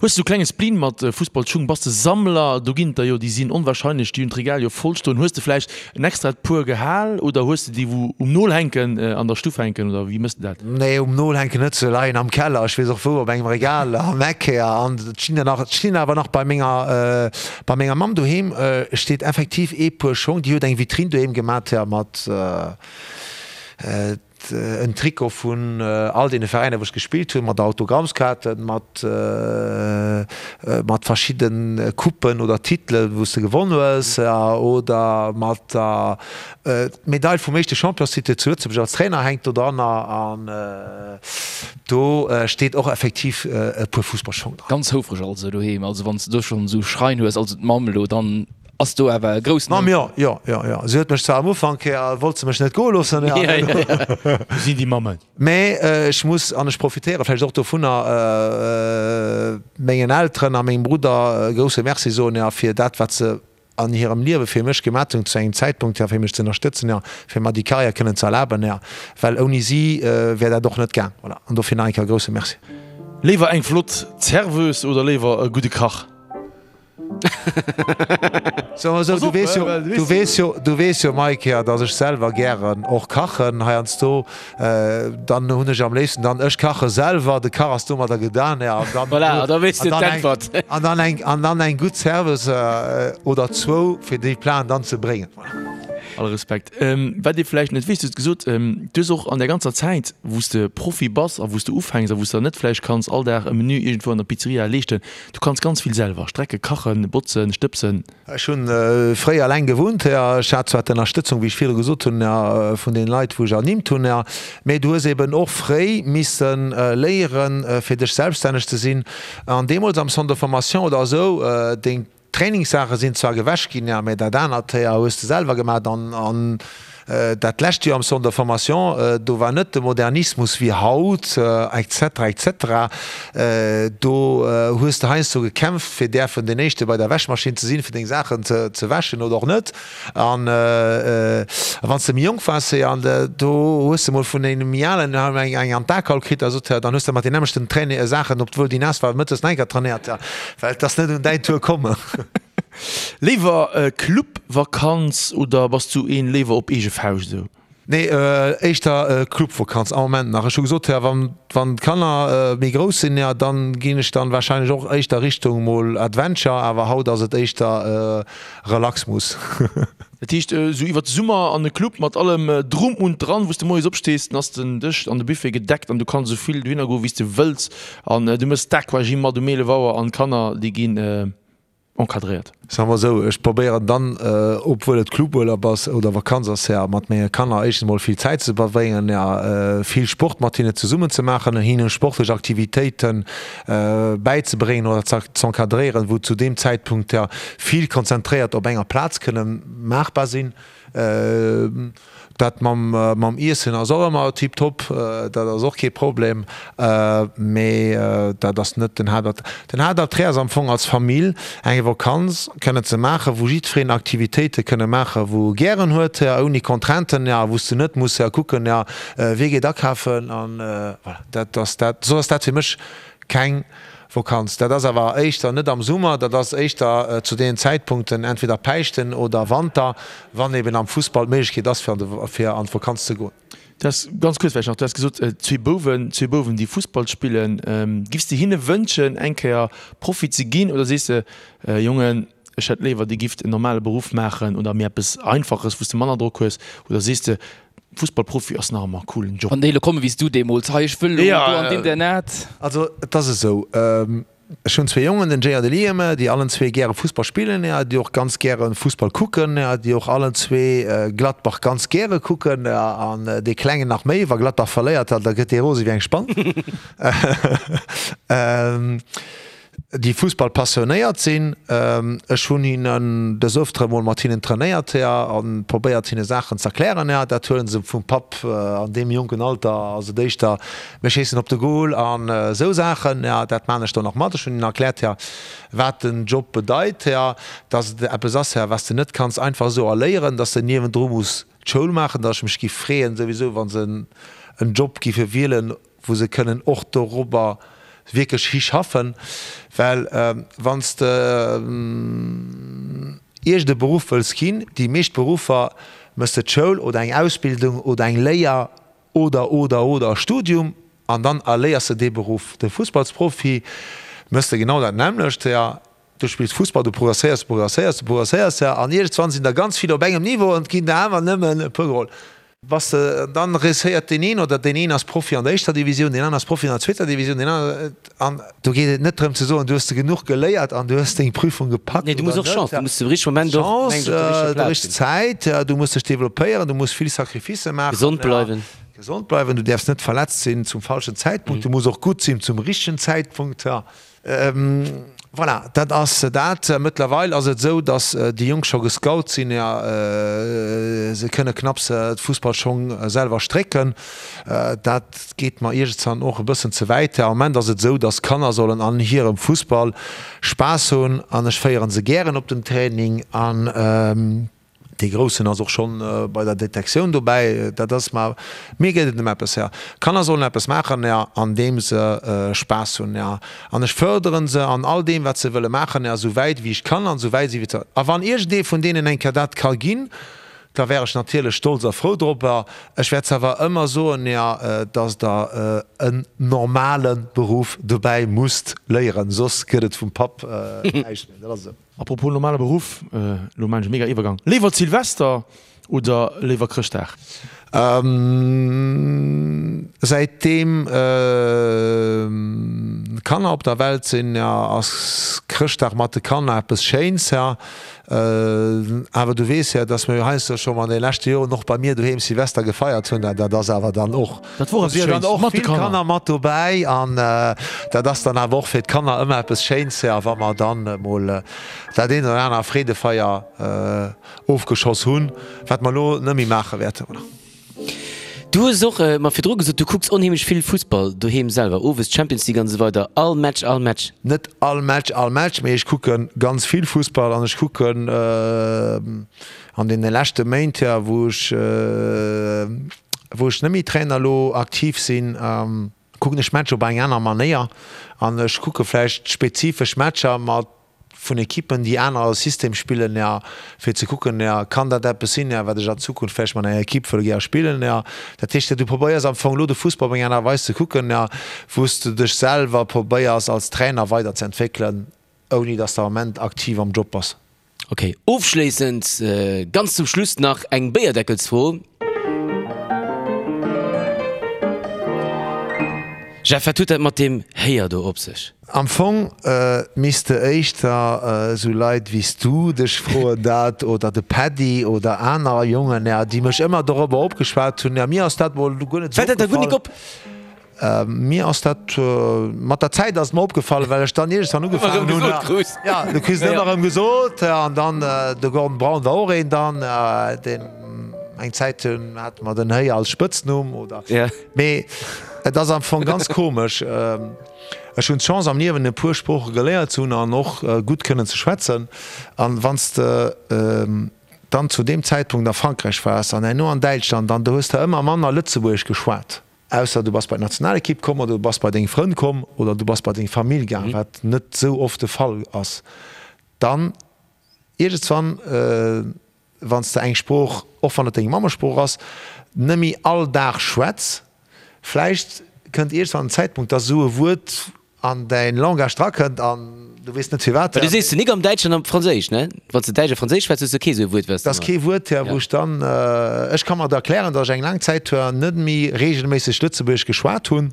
Hues de sou klenge Spleen mat Fussballschung? Bass de Sammler? Do ginn et der jo, déi sinn onwahrscheinlech, déi hunn d'Regal jo voll stoen. Hues de vläicht en extrat Puer gehal oder hues de déi wou um Nol hänken, an der Stuff hänken oder wéi mëss de dat? Nee, um Nol hänken net, se leien am Keller, ech weess och wou, op engem Regal am Eck. An et stinn der nach, et stinn awer nach bei menger, bei menger Mamm doheem steet effektiv ee Puer Schong, déi huet eng Vitrine doheem gemat mat En Trikot vun all deene Veräiner wou ech gespillt hunn, mat Autogrammskaarten, mat mat verschidden Coupen oder Titelen wou s de gewonn hues oder mat der Medail vum éischte Championstitel zu Lëtzebuerg als Trainer hänkt do dranner an do steet och effektiv e puer Fussballschong dran. Ganz houfreg also doheem, also wann s de do schonn esou Schrein hues, also d'Mamm elo dann. Ass do awer e groussen. Mamm, jo, jo, jo, jo. Si huet mech zwar am Ufank, wollt se mech net goe loossen, jo. Wou sinn déi Mammen? Mä ech muss, an ech profitéiere vläicht och dovunner, mengen Elteren a mengem Brudder e grousse Merci soen, jo, fir dat, wat se an hirem Liewe fir mech gemat hunn zu engem Zäitpunkt, jo, fir mech ze ënnerstëtzen, jo, fir mer déi Karriär kënnen ze erlaben, jo, well ouni si wär dat och net gaang. Voilà, an dofir nach eng Kéier e grousse Merci. Léiwer eng flott Serveuse oder léiwer e gudde Kach? Soe mer sou, du weess jo, du weess jo, du weess jo, Mike, jo, datt ech selwer gären och kachen heiansdo. Dann hunn ech am léifsten dann, ech kache selwer, de Kach ass domadder gedan, jo, an dann, Voilà, da weess de d'Äntwert. An dann eng, an dann eng gutt Serveuse oder zwou, fir déi Platen dann ze bréngen. Voilà. All Respekt. Wat ee vläicht net weess, du hues gesot, du hues och an där ganzer Zäit, wou s de Profi bass a wou s de ufänks a wou s de net vläicht kanns all Dag e Menü iergendwou an der Pizzeria leeschten, du kanns ganz vill selwer strecken, kachen, botzen, stëbsen. Ech hunn fréi alleng gewunnt, jo. Ech hat zwar d'Ënnerstëtzung, wéi ech virdru gesot hunn, jo, vun deene Leit, wou ech ernimmt hunn, jo, mee du hues eben och fréi misse léieren, fir dech selbststänneg ze sinn. An deemools am Centre de formation oder esou, deng Trainingssaache sinn zwar gewäsch ginn, jo, mä dat anert, jo, hues de selwer gemaach. An dat lescht Joer am Centre de formation, do war net de Modernismus wéi haut, et cetera, et cetera. Do hues de heiansdo gekämpft, fir däerfen deen Éischte bei der Wäschmaschinn ze sinn, fir deng Saachen ze wäschen oder och net. An wann s de méi jonk waars, jo, an do hues de mol vun engem méi Alen eng an d'A gehaut kritt a sot, dann hues de mat den nämmlechten Saachen, obwuel déi naass war, mëttes nach eng Kéier trainéiert, well et ass net un däin Tour komm. Léiwer Clubvakanz oder bass du een léiwer op eege Fauscht esou? Nee, éischter Clubvakanz am Moment nach. Ech hu gesot, jo, wann wann d'Kanner méi grouss sinn, jo, dann ginn ech dann wahrscheinlech och éischter Richtung mol Adventure, awer haut ass et éischter Relaxmus. Dat heescht esou iwwert de Summer an e Club mat allem drum und dran, wou s de moies opstees, dann ass den Dësch an de Buffet gedeckt an du kanns esou vill dohinner goen, wéi s de wëlls an du mëss d'Aquagym mat um 11 Auer an d'Kanner déi ginn encadréiert. Soe mer esou, ech probéieren dann, obwuel et Cluburlaub ass oder Vakanz ass, ja, mat menge Kanner éischtens emol vill Zäit ze verbréngen, ja, vill Sport mat hinne zesummen ze maachen, hinne sportlech Aktivitéite bäizebréngen oder z'encadréieren, wou zu deem Zäitpunkt, ja, vill konzentréiert op enger Plaz kënne maachbar sinn. Dat mam Iessen ass och ëmmer tiptop, dat ass och kee Problem, mee dat ass net den Haaptattrait. Den Haaptattrait ass am Fong als Famill eng Vakanz kënnen ze maachen, wou jiddwereen Aktivitéite kënne maachen, wou e gären huet, ouni Contrainten, wou s de net muss kucken, wie geet akafen an voilà. Dat ass dat, soss ass dat fir mech keng Vakanz. Dat ass awer éischter net am Summer, dat ass éischter zu deenen Zäitpunkten, entweder Päischten oder Wanter, wann eben am Fussball d'Méiglechkeet ass, fir an d'Vakanz ze goen. Du has, ganz kuerz vläicht nach, du has gesot, zwee Bouwen, zwee Bouwen, déi Fussball spillen. Giffs de hinne wënschen, eng Kéier Profi ze ginn oder sees de, Jongen, ech hätt léiwer, dir gifft en normale Beruff maachen oder méi eppes Einfaches, wou s de manner Drock hues? Oder sees de, Fussballprofi ass nach ëmmer e coolen Job? Wann déi elo kommen, wéi s du deemools, hei ech wëll elo do an d'Internat. Also et ass esou, ech hunn zwee Jongen, den Jay an de Liam, déi allen zwee gäre Fussball spillen, déi och ganz gäre Fussball kucken, déi och allen zwee Gladbach ganz gäre kucken an dee Klengen nach méi. Wa Gladbach verléiert, da gëtt dee rose wéi eng Spann. Déi Fussball passionéiert sinn. Ech hunn hinnen des Öfteren mol mat hinnen trainéiert a probéiert hinne Saachen z'erklären. Dat huelen se vum Papp an deem jonken Alter ass et éischter mir schéissen op de Goal an esou Saachen. Dat maan ech dann och mat. Ech hunn hinnen erkläert wat den Job bedeit, dass et eppes ass wat s de net kanns einfach esou erléieren, dass de niewendru muss d'Schoul maachen, dass ech mech giff freeën souwisou wa se en Job giffe wielen wou se kënnen och dorobber wierklech hischaffen, well wann s de iergend e Beruff wëlls ginn, déi meescht Beruffer méchs de d'Schoul oder eng Ausbildung oder eng Léier oder, oder, oder e Studium an dann erléiers de dee Beruff. De Fussballsprofi méchs de genau dat nämmlecht. Du spills Fussball, du progresséiers, du progresséiers, du progresséiers, ja, an iergendswann sinn der ganz vill op engem Niveau an et ginn der awer nëmmen e puer geholl. Bass de, dann reusséiert deen een oder deen een ass Profi an der éischter Divisioun, deen aner ass Profi an der zweeter Divisioun, deen aner, an do geet et net drëm ze soen, du hues de genuch geléiert an du hues deng Prüfung gepackt Nee, du muss oder och net. Chance, du muss de richtege Moment och, Chance, mengen ech, op der richteger der Plaz richteg sinn. Zäit, du muss dech developpéieren, du muss vill Sacrificë maachen. Gesond bleiwen. Gesond bleiwen, du däerfs net verletzt sinn zum falschen Zäitpunkt, du muss och gutt sinn zum richtegen Zäitpunkt, ja. Voilà, dat ass dat. Mëttlerweil ass et esou, datt déi Jonk scho gescout sinn. Jo, se kënne knapps d'Fussballschong selwer strécken. Dat geet mer iergendwann och e bëssen ze wäit. Am Moment ass et esou, datt d'Kanner sollen an hirem Fussball Spaass hunn an ech féiere se gären op den Training an. Dee Groussen ass och schonn bei der Detektioun dobäi. Dat ass mer, mir geet et ëm eppes, jo. Kanner sollen eppes maachen, jo, an deem se Spaass hunn, jo. An ech fërderen se an all deem, wat se wëlle maachen, jo, esou wäit wéi ech kann an esou wäit si wéi ze. A wann iergendee vun deenen eng Kéier dat ka ginn, Da wär ech natierlech stolz a frou dorobber. Ech wäert awer ëmmer soen, jo, dass Der en normale Beruff dobäi musst léieren, soss gëtt et vum Papp näischt méi. Dat ass esou. Apropos normale Beruff, elo maan ech e mega Iwwergang, léiwer Zilvester oder léiwer Chrëschtdag? Säitdeem Kanner op der Welt sinn, ass Chrëschtdag mat de Kanner eppes Schéins. Awer du weess jo, dass mir jo heiansdo scho an de leschte Joren och bei mir doheem Silvester gefeiert hunn. Dat ass awer dann och, Dat wor do eppes si jo dann Schéins och mat de vill Kanner. Kanner mat dobäi an dat ass dann awer och fir d'Kanner ëmmer eppes Schéins, jo, wa mer dann emol dat eent oder anert Freedefeier ofgeschoss hunn, wat mer elo net méi maache wäerten. Voilà. Du hues och mer virdru gesot, du kucks onheemlech vill Fussball doheem selwer, owes Champions League an esou weider, all Match, all Match? Net all Match, all Match, mee ech kucke ganz vill Fussball an ech kucken an deene leschte Méint, jo, wou ech, wou ech net méi Trainer elo aktiv sinn, kucken ech Matcher op eng aner Manéier an ech kucke vläicht spezifesch Matcher mat vun Ekippen, déi aner System spillen, jo, fir ze kucken, jo, kann dat eppes sinn, jo, wat ech an Zukunft vläicht mat enger Ekipp wëll gär spillen, jo. Dat heescht, du probéiers am Fong elo de Fussball op eng aner Weis ze kucken, jo, wou s de dech selwer probéiers als Trainer weiderzeentwéckelen, ouni datt s de am Ament aktiv am Job bass. Ok, ofschléissend, ganz zum Schluss nach eng Béierdeckelsfro. Jeff, wat huet dat mat deem Héier do op sech? Am Fong misst de éischter esou Leit wéi s du dech froen dat, oder de Paddy oder aner Jongen, déi mech ëmmer dorobber opgeschwat hunn. Mir ass dat mol guer net esou Fält dat der guer nik opgefall. op? Mir ass dat, mat der Zäit ass et mer opgefall, well ech dann iergendwann ugefaangen hunn, jo, du kriss et ëmmer erëm gesot, an dann de Gordon Brown war och een dann, deen eng Zäit hunn, hate mer den Héier als Spëtznumm oder, mee et ass am Fong ganz komesch. Ech hunn d'Chance am Liewen e puer Sprooche geléiert ze hunn an och gutt kënnen ze schwätzen. An wann s de dann zu deem Zäitpunkt a Frankräich waars an herno an Däitschland, dann do hues de ëmmer manner Lëtzebuergesch geschwat. Ausser du bass bei d'Nationalekipp komm oder du bass bei deng Frënn komm oder du bass bei deng Famill gaang, wat net esou oft de Fall ass. Dann iergendswann, wann s de eng Sprooch, och wann et deng Mammesprooch ass, net méi all Dag schwätz, vläicht kënnt iergendswann en Zäitpunkt, dass esou e Wuert an däin Langage drakënnt an du weess net firwat. Well du sees de nik am Däitsch an am Franséisch, ne? Wann s de Däitsch a Franséisch schwätz, hues de kee sou e Wuert, wat s de. Dat ass kee Wuert, jo, wou ech dann, ech ka mer et erklären, datt ech eng laang Zäit net méi reegelméisseg Lëtzebuergesch geschwat hunn.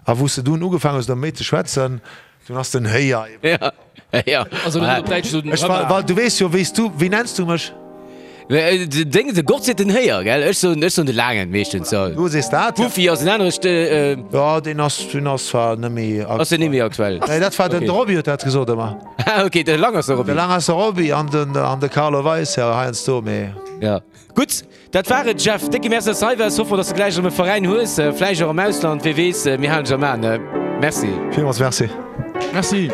A wou s de dunn ugefaangen hues, erëm méi ze schwätzen, dunn ass den Héier eben komm. Ja, Also net op Däitsch esou den Ech war, well du weess jo, wéi s du, wéi nenns du mech? Deng, de Gott seet den Héier, gell? Ech soen, ech soen de Laangen meeschtens, jo. Du sees dat, ja. Buffy ass en anere St. Jo, deen ass, deen ass zwar net méi aktuell. Ass deen net méi aktuell? Nee, dat war den, de Roby huet dat gesot ëmmer. Ah, ok, de Langerser Roby. De Langerser Roby an den, an de Carlo Weis, jo, heiansdo, mee. Ja. Gutt, dat war et, Jeff. Décke Merci, dass de hei waars. Hoffe mer, dass de gläich erëm e Veräin hues, vläicht och am Ausland, wee weess. Mir halen dech am Aen. Merci. Villmools Merci. Merci.